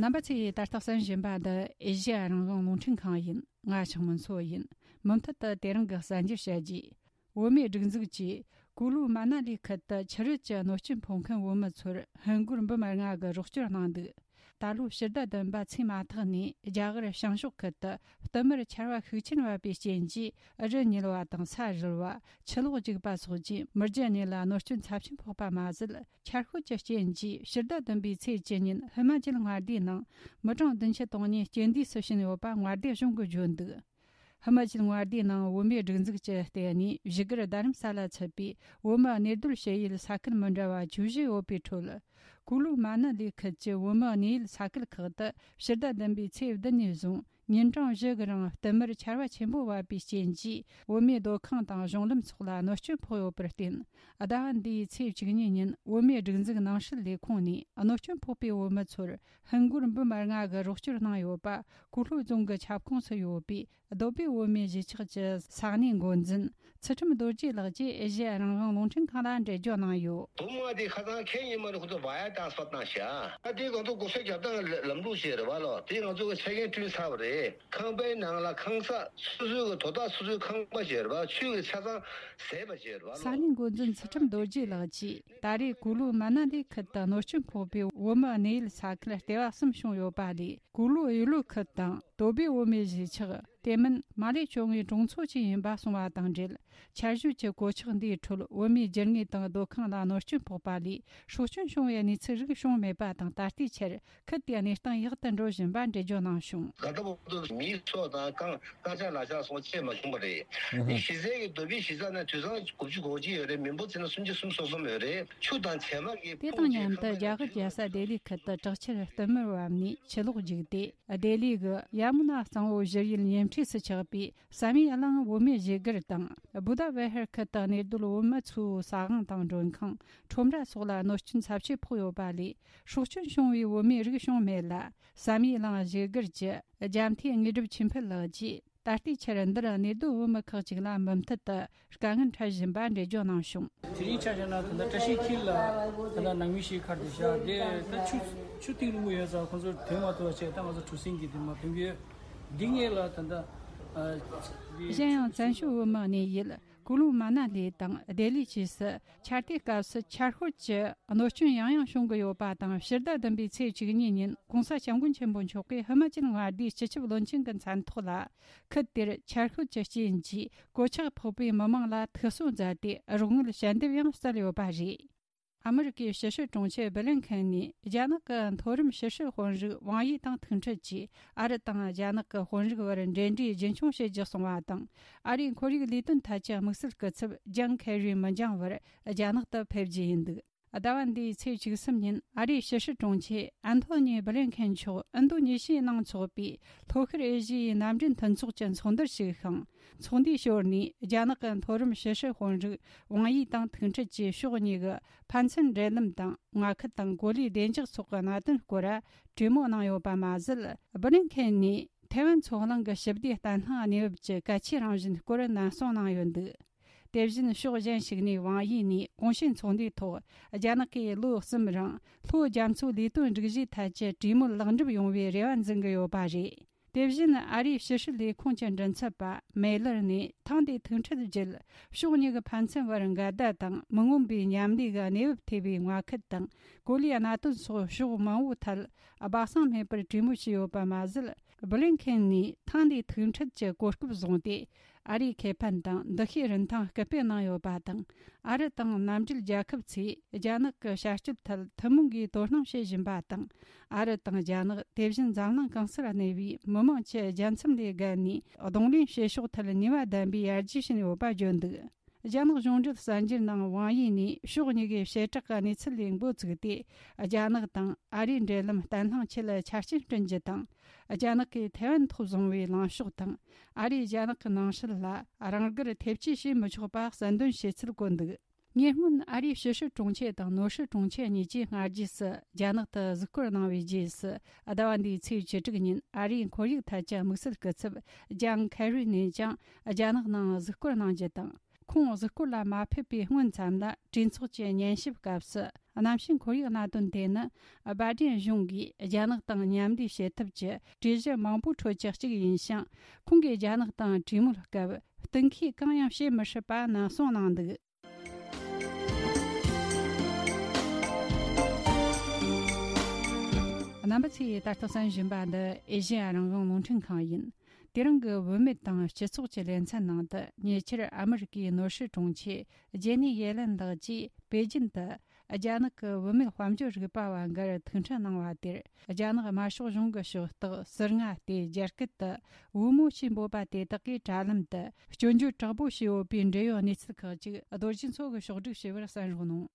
རྣམ་པ་ཚོས་ད་ལྟ་གསན་བཞིན་པ་འདི་ཨེ་ཤེ་ཡ་རང་དབང་རླུང་འཕྲིན་ཁང་ཡིན། ང་ཆགས་མོན་སོ་ཡིན། མུ་མཐུད་དུ་དེ་རིང་གི་གསར་འགྱུར་བཤད་རྒྱུ། བོད་མིའི་སྒྲིག་འཛུགས་ཀྱིས་ཀུ་ལུ་མ་ན་ལི་ཁུལ་དུ་ཆུ་རུད་ཀྱི་གནོད་སྐྱོན་ཕོག་མཁན་བོད་མི་ཚོར་ཧིན་སྒོར་འབུམ་ལྔ་གི་རོགས་སྐྱོར་གནང་འདུག། ད་ལོ་ཕྱི་ཟླ་བདུན་པ་ཚེས་མ་ཐག་ནས་རྒྱ་གར་བྱང་ཕྱོགས་ཁུལ་དུ་བསྟུད་མར་ཆར་བ་ཤུགས་ཆེན་བབས་པའི་རྐྱེན་གྱིས་རི་ཉིལ་བ་དང་ས་རུལ་བ། ཆུ་ལོག་རྒྱུག་པ་སོགས་ཀྱིས་མི་རྒྱུ་གནས་ལ་གནོད་སྐྱོན་ཚབས་ཆེན་ཕོག་པ་མ་ཟད། ཆར་ཤུགས་ཀྱི་རྐྱེན་གྱིས་ཕྱི་ཟླ་བདུན་པའི་ཚེས་བཅུ་ཉིན་ཧི་མ་ཅལ་མངའ་སྡེའི་ནང་མི་གྲངས་བདུན་ཅུ་དོན་གཉིས་རྐྱེན་འདས་སུ་ཕྱིན་ཡོད་པ་མངའ་སྡེ་གཞུང་གིས་བརྗོད་འདུག། ཧི་མ་ཅལ་མངའ་སྡེའི་ནང་བོད་མིའི་སྒྲིག་འཛུགས་ཀྱིས་བརྟེན་ནས་བཞུགས་སྒར་རྡ་རམ་ས་ལ་ཚུད་པའི་བོད་མིའི་གནས་སྡོད་བྱེད་ཡུལ་ས་ཁུལ་མི་འདྲ་བ་བཅུ་བཞི་ཡོད་པའི་ཁྲོད། ཀུ་ལུ་མ་ན་ལི་ཁུལ་གྱི་བོད་མིའི་གནས་ཡུལ་ས་ཁུལ་ཁག་ཏུ་ཕྱི་ཟླ་བདུན་པའི་ཚེས་བདུན་ནས་བཟུང་ ཉིན་གྲངས་བཞི་གི་རིང་བསྟུད་མར་ཆར་པ་ཆེན་པོ་བབས་པའི་རྐྱེན་གྱིས། བོད་མིའི་སྡོད་ཁང་དང་གཞུང་ལམ་སོགས་ལ་གནོད་སྐྱོན་ཕོག་ཡོད་པར་བརྟེན། ཟླ་བ་འདིའི་ཚེས་བཅུ་གཉིས་ཉིན་བོད་མིའི་སྒྲིག་འཛུགས་ནང་སྲིད་ལས་ཁུངས་ནས་གནོད་སྐྱོན་ཕོག་པའི་བོད་མི་ཚོར་ཧིན་སྒོར་འབུམ་ལྔ་གི་རོགས་སྐྱོར་གནང་ཡོད་པ། ཀུ་ལྷོ་རྫོང་གི་ཁྱབ་ཁོངས་སུ་ཡོད་པའི་སྡོད་པའི་བོད་མིའི་གཞིས་ཆགས་ཀྱི་ས་གནས་འགོ་འཛིན་ཚུལ་ཁྲིམས་རྡོ་རྗེ་ལགས་ཀྱིས་ཨེ་ཤེ་ཡ་རང་དབང་རླུང་འཕྲིན་ཁང་ལ་འགྲེལ་བརྗོད་གནང་ཡོད། བུ་མོ་དེ་ཁ་སང་ཁེ་ཉིན་མ་རེད། ཁོ་ཚོ་བ་ཡ་ཏང་སྤར་བཏང་ཤག་ཨ་དེ་ང་ཚོ་གོ་ས་རྒྱབ་སྟངས་ལམ་ལུགས་ཤིག་རེད་བ་ལོ། དེ་ང་ཚོ་གི་ཆ་རྐྱེན་བསྐྲུན་ཚར་བ་རེད། ཁང་པའི་ནང་ལ་ཁང་གསར་སོ་སོའི་གི་དོ་བདག་སོ་སོའི་ཁང་པ་ཞིག་རེད་བ། ཆུ་གི་ཆ་ཚང་ཟད་པ་ཞིག་རེད་བ་ལོ། ས་གནས་འགོ་འཛིན་ཚུལ་ཁྲིམས་རྡོ་རྗེ་ལགས་ཀྱིས་ད་རེས་ཀུ་ལུ་མ་ན་ལི་ཁུལ་དུ་གནོད་སྐྱོན་ཕོག་པའི་བོད་མི་གནས་ཡུལ་ས་ཁུལ་ལྟེ་བ་གསུམ་བྱུང་ཡོད་པ་ལས། ཀུ་ལུ་ཡུ་ལུ་ཁུལ་དང་དོ་བའི་བོད་མིའི་གཞིས་ཆགས། དེ་མིན་མ་ལེ་ཕྱོགས་ངོས་གྲོང་ཚོ་བཅས་ཡིན་པ་གསུངས་པ་དང་འབྲེལ། ཆར་ཞོད་ཀྱི་གོད་ཆག་འདིའི་ཁྲོད་བོད་མིའི་རྒྱུ་དངོས་དང་སྡོད་ཁང་ལ་གནོད་སྐྱོན་ཕོག་པ་ལས། སྲོག་སྐྱོན་བྱུང་བའི་གནས་ཚུལ་རིགས་བྱུང་མེད་པ་དང་། ད་ལྟའི་ཆར་ཁུལ་དེའི་གནས་སྟངས་ཡག་ཏུ་འགྲོ་བཞིན་པ་འགྲེལ་བརྗོད་གནང་བྱུང་། ད་ལྟ་བར་དུ་མིའི་སྲོག་དང་རྐང་རྐང་ཆག་ལག་ཆག་སོགས་ཅི་མ་བྱུང་བ་རེད། ཨ་ཧ། གཞི་རྩའི་གི་དོ་བའི་གཞིས་ཆགས་ནང་དུད་ཚང་དགུ་བཅུ་གོ་གཅིག་ཡོད་རེད། མི་འབོར་བྱས་ན་སུམ་ཅུ་སོ་གསུམ་ཡོད་རེད། ཆུ་དང་བྱེ་མ་གི་དེ་དང་མཉམ་དུ་རྒྱ་གར་རྒྱལ་ས་ལྡི་ལི་ཁུལ་དུ་དྲག་ཆར་བསྟུད་མར་བབས་ནས་ཆུ་ལོག་རྒྱུག་སྟེ། ལྡི་ལི་གི་ཡ་མུ་ན་གཙང་བོ་བཞུར་ཡུལ་ཉེ་འཁྲིས་སུ་ཆགས་པའི་བསམ་ཡས་གླིང་བོད་མིའི་གཞིས་སྒར་དང་། བུ་དྷ་བི་ཧར་ཁུལ་དུ་གནས་སྡོད་བོད་མི་ཚོའི་ས་ཁང་དང་མགྲོན་ཁང་། ཁྲོམ་ར་སོགས་ལ་གནོད་སྐྱོན་ཚབས་ཆེ་ཕོག་ཡོད་པ་ལས། སྲོག་སྐྱོན་བྱུང་བའི་བོད་མིའི་རིགས་བྱུང་མེད་ལ། བསམ་ཡས་གླིང་གཞིས་སྒར་གྱི་རྒྱ་མཐའི་དངོས་གྲུབ་ཆོས་འཕེལ་ལགས་ཀྱིས། ད་ལྟའི་ཆར་འདིར་གནས་སྡོད་བོད་མི་ཁག་ཅིག་ལ་མུ་མཐུད་དུ་དཀའ་ངལ་འཕྲད་བཞིན་པ་འགྲེལ་བརྗོད་གནང་བྱུང་། དེ་རིང་ཆ་བཞག་ན་ད་ལྟ་བཀྲ་ཤིས་འཁྱིལ་ལ་ད་ལྟ་ནང་མི་ཞིག་ཁར་དུ་བཞག་དེ་ད་ཆུ་ཆུ་གཏིང་རིང་པོ་ཡོད་ཙང་ཁོང་ཚོར་ཐོན་མ་ཐུབ་པ་བྱས། ད་ང་ཚོ་གྲུ་གཟིངས་ཀྱིས་དེ་མར་ཐོན་གྱི་ཡོད། འདི་ངེད་ལ་ད་ལྟ་ཨ་འདི་གཞན་ཡང་བཙན་བྱོལ་བོད་མི་གནས་ཡུལ་ཀུ་ལུ་མ་ན་ལི་དང་ལྡི་ལི་བཅས་སུ་ཆར་དུས་སྐབས་སུ་ཆར་ཤུལ་གྱི་གནོད་སྐྱོན་ཡང་ཡང་བྱུང་གི་ཡོད་པ་དང་། ཕྱི་ཟླ་བདུན་པའི་ཚེས་བཅུ་གཉིས་ཉིན་༸གོང་ས་༸སྐྱབས་མགོན་ཆེན་པོ་མཆོག་གིས་ཧི་མ་ཅལ་མངའ་སྡེའི་སྤྱི་ཁྱབ་བློན་ཆེན་གྱི་མཚན་ཐོག་ལ། ཁུལ་དེར་ཆར་ཤུལ་གྱི་རྐྱེན་གྱིས་གོད་ཆག་ཕོག་པའི་མི་མང་ལ་ཐུགས་གསོ་མཛད་དེ། རོགས་དངུལ་ཞལ་འདེབས་ཡང་སྩལ་ཡོད་པ་རེད། ཨ་མི་རི་ཀའི་ཕྱི་སྲིད་དྲུང་ཆེ་སྦི་ལིན་ཁེན་ནས་རྒྱ་ནག་གི་མཐོ་རིམ་ཕྱི་སྲིད་དཔོན་རིགས་ཝང་ཡི་དང་ཐུག་འཕྲད་ཀྱིས། ཨ་རི་དང་རྒྱ་ནག་གི་དཔོན་རིགས་བར་འབྲེལ་འདྲིས་རྒྱུན་འཁྱོངས་བྱེད་རྒྱུ་གསུངས་པ་དང་། ཨ་རིའི་ཁོར་ཡུག་ལས་དོན་ཐད་ཀྱི་དམིགས་བསལ་སྐུ་ཚབ་ཇང་ཁེ་རི་མི་འགྱངས་བར་རྒྱ་ནག་ཏུ་ཕེབས་རྒྱུ་ཡིན་འདུག་ཟླ་བ་འདིའི་ཚེས་བཅུ་གསུམ་ཉིན་ཨ་རིའི་ཕྱི་སྲིད་དྲུང་ཆེ་ཨན་ཐོ་ནི་སྦི་ལིན་ཁེན་མཆོག་ཨིན་རྡུ་ནེ་ཤི་ཡའི་ནང་འཚོགས་པའི་ལྷོ་ཤར་ཨེ་ཤི་ཡའི་མནའ་འབྲེལ་མཐུན་ཚོགས་ཀྱི་ཚོགས་འདུར་ཞུགས་ཤིང་། ཚོགས་འདུའི་ཞོར་ནས་རྒྱ་ནག་གི་མཐོ་རིམ་ཕྱི་སྲིད་དཔོན་རིགས་ཝང་ཡི་དང་ཐུག་འཕྲད་ཀྱིས་ཕྱོགས་གཉིས་ཀྱི་ཕན་ཚུན་འབྲེལ་ལམ་དང་། མངའ་ཁུལ་དང་གོ་ལའི་བདེ་འཇགས་སོགས་ཀྱི་གནད་དོན་སྐོར་གྲོས་མོལ་གནང་ཡོད་པ་མ་ཟད། སྦི་ལིན་ཁེན་ནས་ཐའེ་ཝན་མཚོ་གླིང་གི་ཞི་བདེ་བརྟན་ལྷིང་གནས་བབ་ཀྱི་གལ་ཆེའི་རང་བཞིན་སྐོར་ནན་གསུངས་གནང་ཡོད་འདུག་དེ་བཞིན་ཕྱོགས་གཞན་ཞིག་ནས་ཝང་ཡི་ནས་གོང་ཞུས་ཚོགས་འདུའི་ཐོག་རྒྱ་ནག་གིས་ལོ་གསུམ་རིང་ལྷོ་རྒྱ་མཚོའི་ལས་དོན་སྒྲིག་གཞིའི་ཐད་ཀྱི་གྲོས་མོལ་ལེགས་འགྲུབ་ཡོང་བའི་རེ་བ་འཛིན་གྱི་ཡོད་པ་རེད། དེ་བཞིན་ཨ་རིའི་ཕྱི་སྲིད་ལས་ཁུངས་ཀྱི་མགྲིན་ཚབ་པ་མེ་ལར་ནས་ཐེངས་འདིའི་ཐུག་འཕྲད་བརྒྱུད། ཕྱོགས་གཉིས་ཀྱི་ཕན་ཚུན་བར་འགལ་ཟླ་དང་མི་མངོན་པའི་མཉམ་ལས་ཀྱི་གནས་བབ་ཐེ་བའི་མངའ་ཁུལ་དང་གོ་ལའི་གནད་དོན་སོགས་ཕྱོགས་མང་པོའི་ཐད་སྦ་གསང་མེད་པར་གྲོས་མོལ་བྱས་ཡོད་པ་མ་ཟད། སྦི་ལིན་ཁེན་ནས་ཐེངས་འདིའི་ཐུག་འཕྲད་ཀྱི་གོ་སྐབས་བཟུང་སྟེ། ཨ་རིའི་ཁེ་ཕན་དང་འདུ་ཤེས་རིན་ཐང་སྐུལ་སྤེལ་གནང་ཡོད་པ་དང་། ཨ་རི་དང་མནའ་འབྲེལ་རྒྱལ་ཁབ་ཚོས་རྒྱ་ནག་གི་བྱ་སྤྱོད་ཐད་ཐུན་མོང་གིས་དོ་སྣང་བྱེད་བཞིན་པ་དང་། ཨ་རི་དང་རྒྱ་ནག་དེ་བཞིན་འཛམ་གླིང་གང་སར་གནས་པའི་མི་མང་ཆེ་རྒྱལ་མཚམས་ལས་བརྒལ་ནས་གདོང་ལེན་བྱེད་ཕྱོགས་ཐད་ནུས་པ་ལྡན་པའི་ཡར་རྒྱས་ཕྱིན་ཡོད་པ་བརྗོད་འདུག་རྒྱ་ནག་གཞུང་འབྲེལ་གསར་འགྱུར་ནང་ཝང་ཡི་ནས་ཕྱོགས་གཉིས་ཀའི་བྱེ་བྲག་གི་གནས་ཚུལ་ལས་འགོ་བཙུགས་ཏེ། རྒྱ་ནག་དང་ཨ་རིའི་འབྲེལ་ལམ་བརྟན་ལྷིང་ཆེད་ཆ་རྐྱེན་བསྐྲུན་རྒྱུ་དང་། རྒྱ་ནག་གིས་ཐའེ་ཝན་ཐོག་བཟུང་བའི་ལངས་ཕྱོགས་དང་། ཨ་རིས་རྒྱ་ནག་གི་ནང་སྲིད་ལ་རང་དགར་ཐེབས་ཇུས་བྱེད་མི་ཆོག་པ་གསལ་འདོན་བྱས་ཚུལ་བཀོད་འདུག་ཉེ་སྔོན་ཨ་རིའི་ཕྱི་སྲིད་དྲུང་ཆེ་དང་ནོར་སྲིད་དྲུང་ཆེ་གཉིས་ཀྱིས་སྔ་རྗེས་སུ་རྒྱ་ནག་ཏུ་གཟིགས་སྐོར་གནང་བའི་རྗེས་སུ། ཟླ་བ་འདིའི་ཚེས་བཅུ་དྲུག་ཉིན་ཨ་རིའི་ཁོར་ཡུག་ཐད་ཀྱི་དམིགས་བསལ་སྐུ་ཚབ་ཇང་ཁེ་རི་ནས་ཀྱང་རྒྱ་ནག་ནང་གཟིགས་སྐོར་གནང་རྒྱུ་དང་། ཁོང་གཟིགས་སྐོར་ལ་མ་ཕེབས་པའི་སྔོན་ཙམ་ལ། གྲོས་ཚོགས་ཀྱི་ཉན་ཞིབ་སྐབས་སུ། གནམ་གཤིས་ཁོར་ཡུག་གནད་དོན་དེ་ནི། སྦ་ཌེན་གཞུང་གིས་རྒྱ་ནག་དང་མཉམ་ལས་བྱེད་ཐབས་ཀྱི་གྲོས་གཞི་མང་པོའི་ཁྲོད་ཀྱི་གཅིག་ཡིན་ཞིང་། ཁོང་གིས་རྒྱ་ནག་དང་གྲོས་མོལ་སྐབས་གཏན་འཁེལ་གང་ཡང་བྱེད་མི་སྲིད་པ་ནན་གསུངས་གནང་འདུག་རྣམ་པ་ཚོས་ད་ལྟ་གསན་བཞིན་པ་འདི་ཨེ་ཤེ་ཡ་རང་དབང་རླུང་འཕྲིན་ཁང་ཡིན། དེ་རིང་གི་བུད་མེད་དང་སྤྱི་ཚོགས་ཀྱི་ལེ་ཚན་ནང་དུ། ཉེ་ཆར་ཨ་མི་རི་ཀའི་ནོར་སྲིད་དྲུང་ཆེ་ཇེ་ནི་ཡེ་ལན་ལགས་ཀྱིས་པེ་ཅིན་དུ། རྒྱ་ནག་གི་བུད་མེད་དཔལ་འབྱོར་རིག་པ་བ་འགར་ཐུག་འཕྲད་གནང་བ་དེར། རྒྱ་ནག་དམར་ཤོག་གཞུང་གི་ཕྱོགས་གཏོགས་ཟུར་ལྔ་སྟེ། རྒྱ་སྐད་དུ་བུ་མོ་ཞེས་འབོད་པ་དེ་དག་གིས་དྲ་ལམ་དུ་སྐྱོན་བརྗོད་དྲག་པོ་བྱས་ཡོད་པའི་འབྲེལ་ཡོད་གནས་ཚུལ་ཁག་ཅིག་རྡོ་རྗེ་མཚོ་གིས་ཕྱོགས་སྒྲིག་བྱས་པར་གསན་རོགས་གནང་།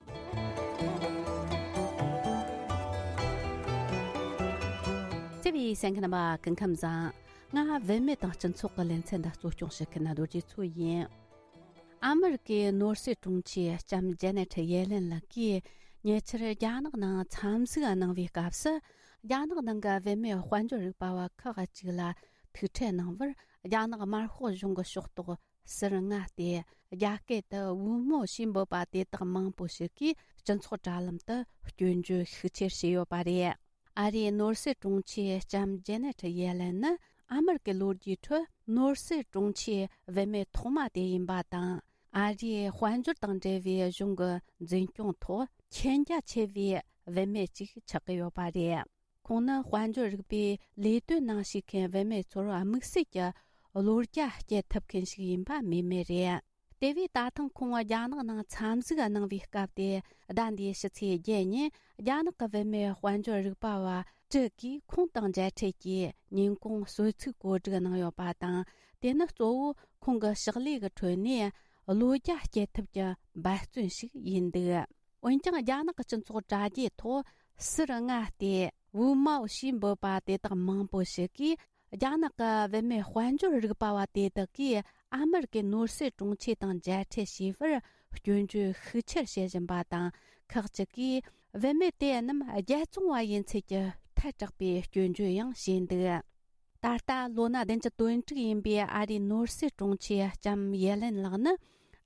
བརྩེ་བའི་གསན་མཁན་རྣམ་པ། སྐུ་ཁམས་བཟང་། ང་བུད་མེད་དང་སྤྱི་ཚོགས་ཀྱི་ལེ་ཚན་འདི་གཙོ་སྐྱོང་བྱེད་མཁན་རྡོ་རྗེ་མཚོ་ཡིན། ཨ་མི་རི་ཀའི་ནོར་སྲིད་དྲུང་ཆེ་ལྕམ་ཇེ་ནེ་ཊི་ཡེ་ལེན་ལགས་ཀྱིས་ཉེ་ཆར་རྒྱ་ནག་ནང་འཚམས་གཟིགས་གནང་བའི་སྐབས་སུ། རྒྱ་ནག་ནང་གི་བུད་མེད་དཔལ་འབྱོར་རིག་པ་བ་ཁག་ཅིག་ལ་ཐུག་འཕྲད་གནང་བར། རྒྱ་ནག་དམར་ཤོག་གཞུང་གི་ཕྱོགས་གཏོགས་ཟུར་མངའ་སྟེ། རྒྱ་སྐད་དུ་ཝུ་མོ་ཞེས་འབོད་པ་དེ་དག་མང་པོ་ཞིག་གིས་སྤྱི་ཚོགས་དྲ་ལམ་དུ་སྐྱོན་བརྗོད་ཤུགས་ཆེར་བྱས་ཡོད་པ་རེད། ཨ་རིའི་ནོར་སྲིད་དྲུང་ཆེ་ལྕམ་ཇེ་ནེ་ཊི་ཡེ་ལེན་ནི་ཨ་མི་རི་ཀའི་ལོ་རྒྱུས་ཁྲོད་ནོར་སྲིད་དྲུང་ཆེའི་བུད་མེད་ཐོག་མ་དེ་ཡིན་པ་དང་། ཨ་རིའི་དཔལ་འབྱོར་དང་འབྲེལ་བའི་གཞུང་གི་འཛིན་སྐྱོང་ཐོག་མཁྱེན་རྒྱ་ཆེ་བའི་བུད་མེད་ཅིག་ཆགས་ཀྱི་ཡོད་པ་རེད། ཁོང་ནི་དཔལ་འབྱོར་རིག་པའི་ལས་དོན་ནང་ཞུགས་མཁན་བུད་མེད་ཚོར་དམིགས་བསལ་གྱི་བློ་རྒྱ་སྐྱེད་ཐུབ་མཁན་ཞིག་ཡིན་པ་སྨོས་མེད་རེད། དེ་བས་ད་ཐེངས་ཁོང་རྒྱ་ནག་ནང་འཚམས་གཟིགས་གནང་བའི་སྐབས་དེ། ཟླ་འདིའི་ཕྱི་ཚེས་བརྒྱད་ཉིན་རྒྱ་ནག་གི་བུད་མེད་དཔལ་འབྱོར་རིག་པ་བ་དྲུག་གིས་ཁོང་དང་མཇལ་འཕྲད་ཀྱིས་ཉིན་གུང་གསོལ་ཚིགས་གོ་སྒྲིག་གནང་ཡོད་པ་དང་། དེ་ནི་གཙོ་བོ་ཁོང་གི་ཕྱག་ལས་ཀྱི་ཁྲོད་ནས་བློ་རྒྱ་སྐྱེད་ཐབས་ཀྱི་འབད་བརྩོན་ཞིག་ཡིན་འདུག་འོན་ཀྱང་། རྒྱ་ནག་གི་སྤྱི་ཚོགས་དྲ་རྒྱའི་ཐོག་ཟུར་མངའ་སྟེ་ཝུ་མའོ་ཞེས་འབོད་པ་དེ་དག་མང་པོ་ཞིག་གིས། རྒྱ་ནག་གི་བུད་མེད་དཔལ་འབྱོར་རིག་པ་བ་དེ་དག་གིས་ཨ་མི་རི་ཀའི་ནོར་སྲིད་དྲུང་ཆེ་དང་མཇལ་འཕྲད་བྱས་པར་སྐྱོན་བརྗོད་ཤུགས་ཆེར་བྱེད་བཞིན་པ་དང་། ཁག་ཅིག་གིས་བུད་མེད་དེ་རྣམས་རྒྱལ་བཙོང་བ་ཡིན་ཚུལ་གྱི་ཐལ་དྲགས་པའི་སྐྱོན་བརྗོད་ཡང་བྱས་འདུག་ད་ལྟ་ལོ་ན་བདུན་ཅུ་དོན་དྲུག་ཡིན་པའི་ཨ་རིའི་ནོར་སྲིད་དྲུང་ཆེ་ལྕམ་ཡེ་ལེན་ལགས་ནི།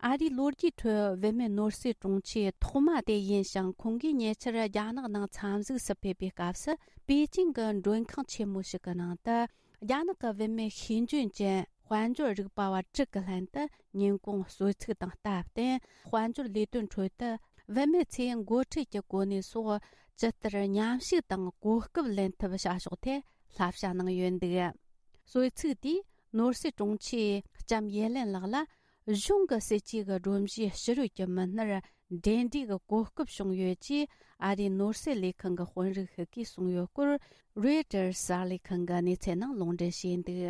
ཨ་རིའི་ལོ་རྒྱུས་ཁྲོད་བུད་མེད་ནོར་སྲིད་དྲུང་ཆེ་ཐོག་མ་དེ་ཡིན་ཞིང་། ཁོང་གིས་ཉེ་ཆར་རྒྱ་ནག་ནང་འཚམས་གཟིགས་སུ་ཕེབས་པའི་སྐབས་སུ། པེ་ཅིང་གི་མགྲོན་ཁང་ཆེན་མོ་ཞིག་གི་ནང་དུ། རྒྱ་ནག་གི་བུད་མེད་ཤེས་འཇོན་ཅན་དཔལ་འབྱོར་རིག་པ་བ་དྲུག་གི་ལྷན་དུ་ཉིན་གུང་གསོལ་ཚིགས་དང་སྟབས་བསྟུན། དཔལ་འབྱོར་ལས་དོན་ཁྲོད་དུ་བུད་མེད་ཚོས་འགོ་ཁྲིད་ཀྱི་གོ་གནས་སོགས་ཇི་ལྟར་མཉམ་ཞུགས་དང་གོ་སྐབས་ལེན་ཐུབ་བྱ་ཕྱོགས་ཐད་བསླབ་བྱ་གནང་ཡོད་འདུག་གསོལ་ཚིགས་དེས་ནོར་སྲིད་དྲུང་ཆེ་ལྕམ་ཡེ་ལེན་ལགས་ལ། གཞུང་གི་སྲིད་ཇུས་ཀྱི་སྒྲོམ་གཞིའི་ཕྱི་རོལ་གྱི་མི་སྣར་འབྲེལ་འདྲིས་ཀྱི་གོ་སྐབས་བྱུང་ཡོད་ཅེས་ཨ་རིའི་ནོར་སྲིད་ལས་ཁང་གི་དཔོན་རིགས་ཤིག་གིས་གསུངས་ཡོད་སྐོར། རོའི་ཊར་གསར་ལས་ཁང་གི་གནས་ཚུལ་ནང་ལུང་འདྲེན་བྱས་འདུག་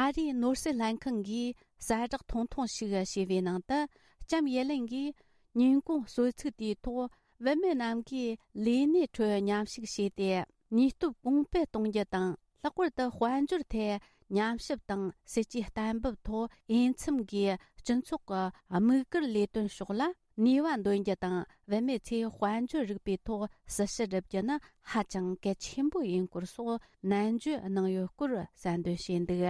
ཨ་རིའི་ནོར་སྲིད་ལྷན་ཁང་གིས་གསལ་བསྒྲགས་ཐུང་ཐུང་ཞིག་བྱས་པའི་ནང་དུ། ལྕམ་ཡེ་ལེན་གྱིས་ཉིན་གུང་གསོལ་ཚིགས་དེའི་ཐོག་བུད་མེད་རྣམས་ཀྱིས་ལས་གནས་ཁྲོད་མཉམ་ཞུགས་བྱས་ཏེ། ནུས་སྟོབས་གོང་སྤེལ་གཏོང་རྒྱུ་དང་། ལྷག་པར་དུ་དཔལ་འབྱོར་ཐད་ཉམས་ཞིབ་དང་སྲིད་ཇུས་གཏན་འབེབས་ཐོག་འོས་འཚམ་གྱིས་སྤྱི་ཚོགས་ཀྱི་དམིགས་བཀར་ལས་དོན་ཕྱོགས་ལ་ནུས་པ་འདོན་རྒྱུ་དང་། བུད་མེད་ཚོས་དཔལ་འབྱོར་རིག་པའི་ཐོག་སྲི་ཞུ་སྒྲུབ་རྒྱུ་ནི་ཧ་ཅང་གལ་ཆེན་པོ་ཡིན་སྐོར་སོགས་ནན་བརྗོད་གནང་ཡོད་སྐོར་གསལ་འདོན་བྱས་འདུག་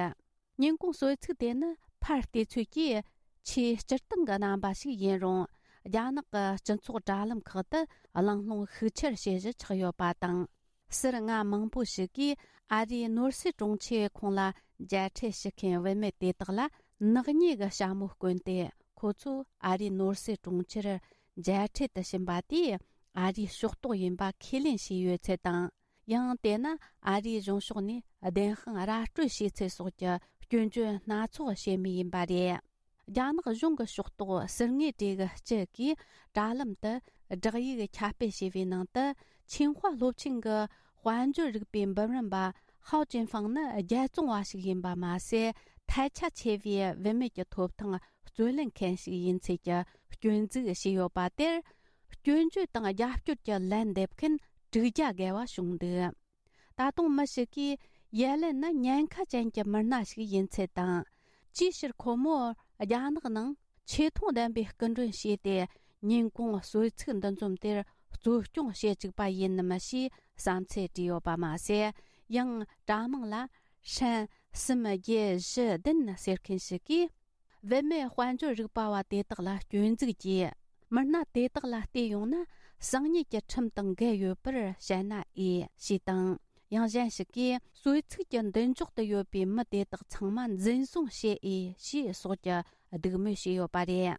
ཉིན་གུང་གསོལ་ཚིགས་དེ་ནི་ཕར་བལྟས་ཚོད་ཀྱིས་ཆེས་སྤྱིར་བཏང་གི་རྣམ་པ་ཞིག་ཡིན་རུང་། རྒྱ་ནག་གི་སྤྱི་ཚོགས་དྲ་ལམ་ཁག་ཏུ་གླེང་སློང་ཤུགས་ཆེར་བྱེད་གཞི་ཆགས་ཡོད་པ་དང་། ཟུར་མངའ་མང་པོ་ཞིག་གིས་ཨ་རིའི་ནོར་སྲིད་དྲུང་ཆེས་ཁོང་ལ་མཇལ་འཕྲད་ཞུ་མཁན་བུད་མེད་དེ་དག་ལ་ནག་ཉེས་ཀྱི་ཞྭ་མོ་བསྐོན་ཏེ། ཁོ་ཚོ་ཨ་རིའི་ནོར་སྲིད་དྲུང་ཆེར་མཇལ་འཕྲད་དུ་ཕྱིན་པ་དེས་ཨ་རིའི་ཕྱོགས་གཏོགས་ཡིན་པ་ཁས་ལེན་བྱས་ཡོད་ཚུལ་དང་། ཡང་དེ་ནི་ཨ་རིའི་གཞུང་ཕྱོགས་ནས་བདེན་དཔང་ར་སྤྲོད་བྱས་ཚུལ་སོགས་ཀྱི་སྐྱོན་བརྗོད་སྣ་ཚོགས་བྱེད་མུས་ཡིན་པ་རེད། རྒྱ་ནག་གཞུང་གི་ཕྱོགས་གཏོགས་ཟུར་ངོས་གྲས་ཀྱི་སྤྱི་གིས་དྲ་ལམ་དུ་བསྒྲགས་ཡིག་ཁྱབ་སྤེལ་བྱས་པའི་ནང་དུ། ཆིང་ཧྭ་སློབ་ཆེན་གྱི་དཔལ་འབྱོར་རིག་པའི་འབུམ་རམས་པ་ཧའོ་ཅིན་ཧྥང་ནི་རྒྱལ་བཙོང་བ་ཞིག་ཡིན་པ་མ་ཟད། ཐལ་ཆ་ཆེ་བའི་བུད་མེད་ཀྱི་ཐོབ་ཐང་རྩོད་ལེན་མཁན་ཞིག་ཡིན་ཚུལ་གྱི་སྐྱོན་འཛུགས་བྱས་ཡོད་པ་དེར། སྐྱོན་བརྗོད་དང་རྒྱབ་སྐྱོར་གྱི་ལན་འདེབས་མཁན་དྲུག་བརྒྱ་བརྒལ་བ་བྱུང་འདུག་ད་དུང་མི་ཞིག་གིས་ཡེ་ལེན་ནི་ཉེན་ཁ་ཅན་གྱི་མི་སྣ་ཞིག་ཡིན་ཚུལ་དང་། ཅིའི་ཕྱིར་ཁོ་མོར་རྒྱ་ནག་ནང་ཆེ་མཐོང་ལྡན་པའི་སྐུ་མགྲོན་བྱས་ཏེ། ཉིན་གུང་གསོལ་ཚིགས་འདུ་འཛོམས་དེར་གཙོ་སྐྱོང་བྱེད་བཅུག་པ་ཡིན་ནམ་ཞེས་བསམ་ཚུལ་བྲིས་ཡོད་པ་མ་ཟད། ཡང་དྲ་མིང་ལ་ཧྲན་གསུམ་བརྒྱད་བཞི་བདུན་ཟེར་མཁན་ཞིག་གིས། བུད་མེད་དཔལ་འབྱོར་རིག་པ་བ་དེ་དག་ལ་སྐྱོན་འཛུགས་ཀྱིས། མི་སྣ་དེ་དག་ལ་བལྟས་ཡོང་ན། གསང་ཉུལ་གྱི་ཁྲིམས་དང་འགལ་ཡོད་པར་བཤད་ན་འོས་ཞེས་དང་། ཡང་གཞན་ཞིག་གིས། གསོལ་ཚིགས་ཀྱི་མདུན་ཅོག་ཏུ་ཡོད་པའི་མི་དེ་དག་ཚང་མ་འཛིན་བཟུང་བྱེད་འོས་ཞེས་སོགས་ཀྱི་སྡིགས་དམོད་བྱས་ཡོད་པ་རེད།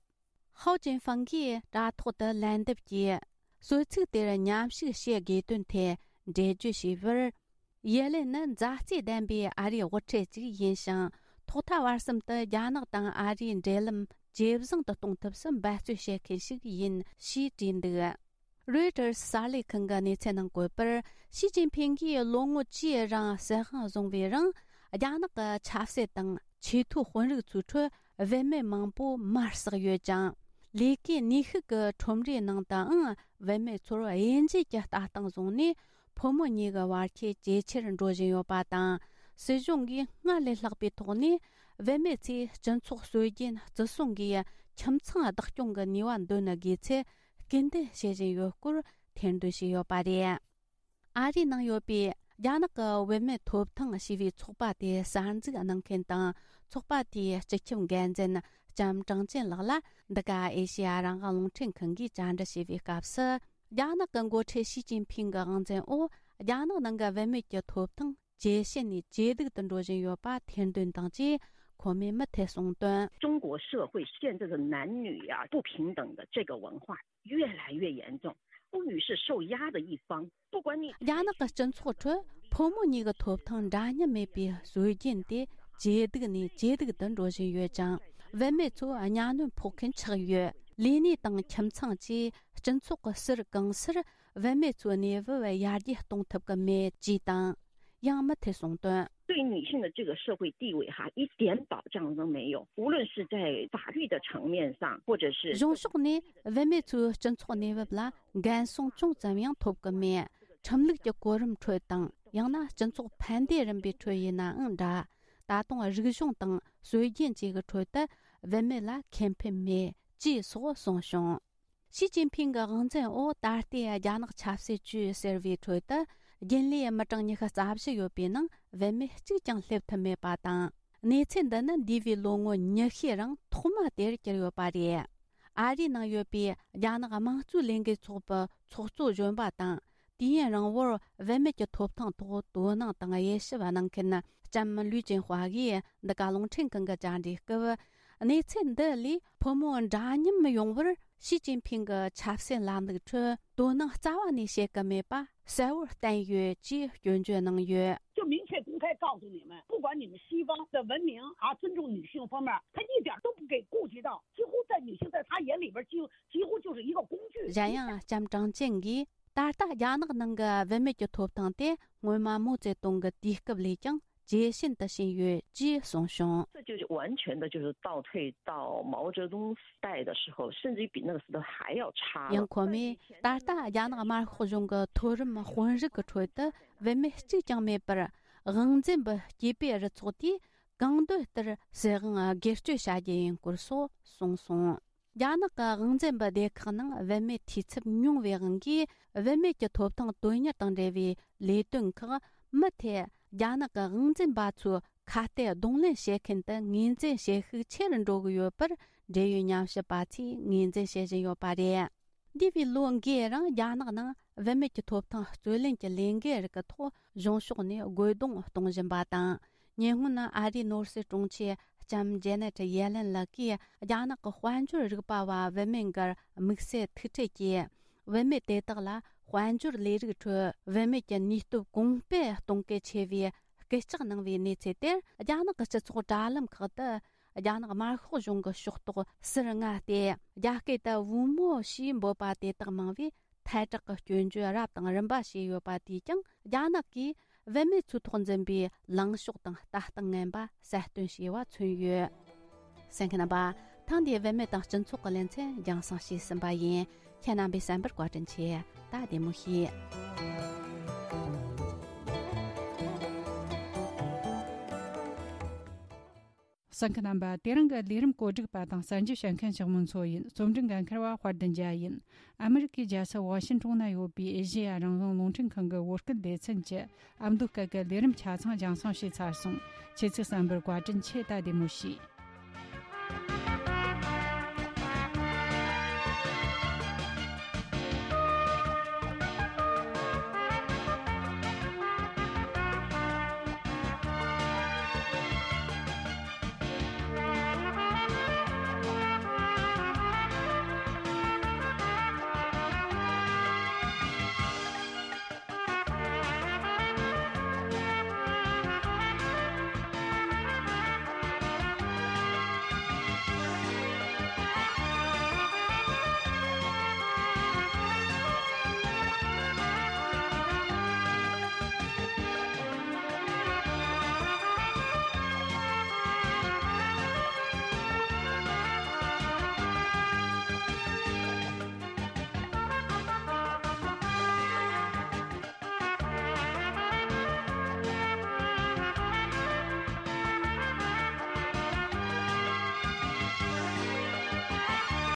ཧའོ་ཅིན་ཧྥང་གིས་དྲ་ཐོག་ཏུ་ལན་འདེབས་ཀྱིས། གསོལ་ཚིགས་དེར་མཉམ་ཞུགས་བྱེད་དགོས་དོན་ཐད་འགྲེལ་བརྗོད་བྱས་པར། ཡེ་ལེན་ནི་མཛའ་བརྩེ་ལྡན་པའི་ཨ་རིའི་དབུ་ཁྲིད་ཅིག་ཡིན་ཞིང་། ཐོག་མཐའ་བར་གསུམ་དུ་རྒྱ་ནག་དང་ཨ་རིའི་འབྲེལ་ལམ་ཇེ་བཟང་དུ་གཏོང་ཐབས་སུ་འབད་བརྩོན་བྱེད་མཁན་ཞིག་ཡིན་ཞེས་བྲིས་འདུག་རོའི་ཊར་གསར་ལས་ཁང་གི་གནས་ཚུལ་ནང་བཀོད་པར། ཞི་ཅིན་ཕིང་གིས་ལོ་ངོ་བཅུའི་རིང་སྲིད་དབང་བཟུང་བའི་རིང་། རྒྱ་ནག་གི་ཆབ་སྲིད་དང་ཆེས་མཐོའི་དཔོན་རིགས་ཚོའི་ཁྲོད་བུད་མེད་མང་པོ་མར་ཟག་ཡོད་ཅིང་། ལས་ཀའི་ནུས་ཤུགས་ཀྱི་ཁྲོམ་རའི་ནང་དུའང་བུད་མེད་ཚོར་དབྱེ་འབྱེད་ཀྱི་ལྟ་སྟངས་བཟུང་ནས། ཕོ་མོ་གཉིས་ཀྱི་བར་ཁྱད་ཇེ་ཆེར་འགྲོ་བཞིན་ཡོད་པ་དང་། སྲིད་གཞུང་གིས་སྔར་ལས་ལྷག་པའི་ཐོག་ནས་བུད་མེད་ཚོས་སྤྱི་ཚོགས་སྲོལ་རྒྱུན་བརྩི་སྲུང་གིས་ཁྱིམ་ཚང་བདག་སྐྱོང་གི་ནུས་པ་འདོན་དགོས་ཚུལ་སྐུལ་འདེད་བྱེད་བཞིན་ཡོད་སྐོར་ཐེར་འདོན་བྱས་ཡོད་པ་རེད། ཨ་རིའི་ནང་ཡོད་པའི་རྒྱ་ནག་གི་བུད་མེད་ཐོབ་ཐང་ཞེས་པའི་ཚོགས་པ་དེ་གསར་འཛུགས་གནང་མཁན་དང་། ཚོགས་པ་དེའི་སྤྱི་ཁྱབ་འགན་འཛིན་ལྕམ་ཀྲང་ཅན་ལགས་ལ་འདི་ག་ཨེ་ཤེ་ཡ་རང་དབང་རླུང་འཕྲིན་ཁང་གིས་བཅར་འདྲི་བྱས་པའི་སྐབས་སུ། རྒྱ་ནག་གི་འགོ་ཁྲིད་ཞི་ཅིན་ཕིང་གི་དབང་འཛིན་འོག་རྒྱ་ནག་ནང་གི་བུད་མེད་ཀྱི་ཐོབ་ཐང་ཇེ་ཞན་ནས་ཇེ་སྡུག་ཏུ་འགྲོ་བཞིན་ཡོད་པ་ཐེར་འདོན་དང་བཅས་གོང་མའི་མུ་མཐུད་གསུངས་དོན། 中国社会现在的男女呀、不平等的这个文化越来越严重，妇女是受压的一方。不管你 རྒྱ་ནག་གི་སྤྱི་ཚོགས་ཁྲོད་ཕོ་མོ་གཉིས་ཀྱི་ཐོབ་ཐང་འདྲ་མཉམ་མེད་པའི་སྲོལ་རྒྱུན་དེ་ཇེ་སྡུག་ནས་ཇེ་སྡུག་ཏུ་འགྲོ་བཞིན་ཡོད་ཅིང་། བུད་མེད་ཚོ་གཉའ་གནོན་ཕོག་མཁན་ཆགས་ཡོད། ལས་གནས་དང་ཁྱིམ་ཚང་བཅས་སྤྱི་ཚོགས་ཀྱི་ཟུར་གང་སར་བུད་མེད་ཚོའི་གནས་བབ་ཡར་རྒྱས་གཏོང་ཐུབ་ཀྱི་མེད་ཅེས་དང་། ཡང་མུ་མཐུད་གསུངས་དོན། 对女性的这个社会地位哈，一点保障都没有。无论是在法律的层面上，或者是 གཞུང་ཕྱོགས་ནས་བུད་མེད་ཚོའི་སྤྱི་ཚོགས་གནས་བབ་ལ་འགན་སྲུང་ཅུང་ཙམ་ཡང་ཐོབ་ཀྱི་མེད། ཁྲིམས་ལུགས་ཀྱི་གོ་རིམ་ཁྲོད་དང་། ཡང་ན་སྤྱི་ཚོགས་ཕན་བདེ་རིམ་པའི་ཁྲོད་ཡིན་ནའང་འདྲ། ད་དུང་རིག་གཞུང་དང་སྲོལ་རྒྱུན་བཅས་ཀྱི་ཁྲོད་དུ་བུད་མེད་ལ་ཁེ་ཕན་མེད་ཅེས་སོགས་གསུངས་བྱུང་། ཞི་ཅིན་ཕིང་གི་དབང་འཛིན་འོག་ད་ལྟའི་རྒྱ་ནག་ཆབ་སྲིད་ཅུས་ཟེར་བའི་ཁྲོད་དུ་རྒྱུན་ལས་མི་གྲངས་ཉི་ཤུ་རྩ་བཞི་ཡོད་པའི་ནང་བུད་མེད་གཅིག་ཀྱང་སླེབས་ཐུབ་མེད་པ་དང་། གནས་ཚུལ་འདི་ནི་འདས་པའི་ལོ་ངོ་ཉི་ཤུའི་རིང་ཐོག་མ་དེར་གྱུར་ཡོད་པ་རེད། ཨ་རིའི་ནང་ཡོད་པའི་རྒྱ་ནག་དམངས་གཙོའི་ལས་འགུལ་ཚོགས་པའི་ཚོགས་གཙོ་གཞོན་པ་དང་། དུས་ཡུན་རིང་བོར་བུད་མེད་ཀྱི་ཐོབ་ཐང་ཐོག་དོ་སྣང་དང་དབྱེ་ཞིབ་གནང་མཁན་ལྕམ་ལུའུ་ཅིན་ཧྭ་གིས་འདི་ག་རླུང་འཕྲིན་ཁང་གི་བཅར་འདྲིའི་སྐབས། གནས་ཚུལ་འདི་ལས་ཕོ་མོ་འདྲ་མཉམ་ཡོང་བར་ཞི་ཅིན་ཕིང་གི་ཆབ་སྲིད་ལམ་ལུགས་ཁྲོད་དོ་སྣང་རྩ་བ་ནས་བྱེད་ཀྱི་མེད་པ་གསལ་བོར་བསྟན་ཡོད་ཅེས་སྐྱོན་བརྗོད་གནང་ཡོད། 就明确公开告诉你们，不管你们西方的文明啊，尊重女性方面，他一点都不给顾及到，几乎在女性在他眼里边就几乎就是一个工具。 གཞན་ཡང་ལྕམ་ཀྲང་ཅན་གྱིས། ད་ལྟ་རྒྱ་ནག་ནང་གི་བུད་མེད་ཀྱི་ཐོབ་ཐང་དེ་སྔོན་མ་མའོ་ཙེ་ཏུང་གི་དུས་སྐབས་ལས་ཀྱང་ཇེ་ཞན་དུ་ཕྱིན་ཡོད་ཅེས་གསུངས་བྱུང་། 这就是完全的，就是倒退到毛泽东时代的时候，甚至于比那个时代还要差了。 ཡང་ཁོ་མོས་ད་ལྟ་རྒྱ་ནག་དམར་ཤོག་གཞུང་གི་མཐོ་རིམ་དཔོན་རིགས་ཀྱི་ཁྲོད་དུ་བུད་མེད་གཅིག་ཀྱང་མེད་པར། དབང་འཛིན་པའི་སྐྱེས་པའི་རུ་ཚོགས་དེས་གང་འདོད་ལྟར་སྲིད་དབང་སྒེར་གཅོད་བྱ་རྒྱུ་ཡིན་སྐོར་སོགས་གསུངས་སོང་། རྒྱ་ནག་གི་དབང་འཛིན་པའི་སྡེ་ཁག་ནང་བུད་མེད་འཐུས་ཚབ་ཉུང་བའི་དབང་གིས། བུད་མེད་ཀྱི་ཐོབ་ཐང་དོན་གཉེར་དང་འབྲེལ་བའི་ལས་དོན་ཁག་མུ་མཐུད་རྒྱ་ནག་གི་དབང་འཛིན་པ་ཚོའི་ཁ་གཏད་གདོང་ལེན་བྱེད་མཁན་དུ་ངོས་འཛིན་བྱེད་ཤུགས་ཆེ་རུ་འགྲོ་གི་ཡོད་པར་འབྲེལ་ཡོད་ཉམས་ཞིབ་པ་ཚོས་ངོས་འཛིན་བྱེད་བཞིན་ཡོད་པ་རེད། འདས་པའི་ལོ་འགའི་རིང་རྒྱ་ནག་ནང་བུད་མེད་ཀྱི་ཐོབ་ཐང་རྩོད་ལེན་གྱི་ལས་འགུལ་རིགས་ཀྱི་ཐོག་གཞུང་ཕྱོགས་ནས་རྒོལ་རྡུང་གཏོང་བཞིན་པ་དང་། ཉེ་སྔོན་ཨ་རིའི་ནོར་སྲིད་དྲུང་ཆེ་ལྕམ་ཇེ་ནེ་ཊི་ཡེ་ལེན་ལགས་ཀྱིས་རྒྱ་ནག་གི་དཔལ་འབྱོར་རིག་པ་བ་བུད་མེད་འགར་དམིགས་བསལ་ཐུག་འཕྲད་ཀྱིས། བུད་མེད་དེ་དག་ལ་དཔལ་འབྱོར་ལས་རིགས་ཁྲོད་བུད་མེད་ཀྱི་ནུས་སྟོབས་གོང་སྤེལ་གཏོང་གལ་ཆེ་བའི་སྐུལ་ལྕག་གནང་བའི་གནས་ཚུལ་དེར། རྒྱ་ནག་གི་སྤྱི་ཚོགས་དྲ་ལམ་ཁག་ཏུ་རྒྱ་ནག་དམར་ཤོག་གཞུང་གི་ཕྱོགས་གཏོགས་ཟུར་མངའ་སྟེ། རྒྱ་སྐད་དུ་བུ་མོ་ཞེས་འབོད་པ་དེ་དག་མང་བས། ཐལ་དྲགས་ཀྱི་སྐྱོན་བརྗོད་རབ་དང་རིམ་པ་བྱས་ཡོད་པ་དེས་ཀྱང་། རྒྱ་ནག་གིས་བུད་མེད་ཚོའི་ཐོག་འཛིན་པའི་ལངས་ཕྱོགས་དང་ལྟ་སྟངས་ངན་པ་གསལ་སྟོན་བྱས་པ་མཚོན་ཡོད། གསན་མཁན་རྣམ་པ། ཐེངས་འདིའི་བུད་མེད་དང་སྤྱི་ཚོགས་ཀྱི་ལེ་ཚན་རྒྱང་སྲིང་བྱས་ཟིན་པ་ཡིན། ཁྱེད་རྣམ་པས་གསན་པར་བཀའ་དྲིན་ཆེ། ད་བདེ་མོ་བྱོས། གསན་མཁན་རྣམ་པ། དེ་རིང་གི་ལས་རིམ་གོ་སྒྲིག་པ་དང་གསར་འགྱུར་བཤད་མཁན་ཞིག་མུན་ཚོ་ཡིན། རྩོམ་སྒྲིག་འགན་འཁུར་བ་དཔལ་ལྡན་རྒྱལ་ཡིན། ཨ་མི་རི་ཀའི་རྒྱལ་ས་ཝ་ཤིན་ཀྲུང་ན་ཡོད་པའི་ཨེ་ཤེ་ཡ་རང་དབང་རླུང་འཕྲིན་ཁང་གི་བོད་སྐད་སྡེ་ཚན་གྱི་ཨ་མདོ་སྐད་ཀྱི་ལས་རིམ་ཆ་ཚང་རྒྱང་སྲིང་བྱས་ཚར་སོང་། ཁྱེད་ཚོས་གསན་པར་བཀའ་དྲིན་ཆེ། ད་བདེ་མོ་བྱོས།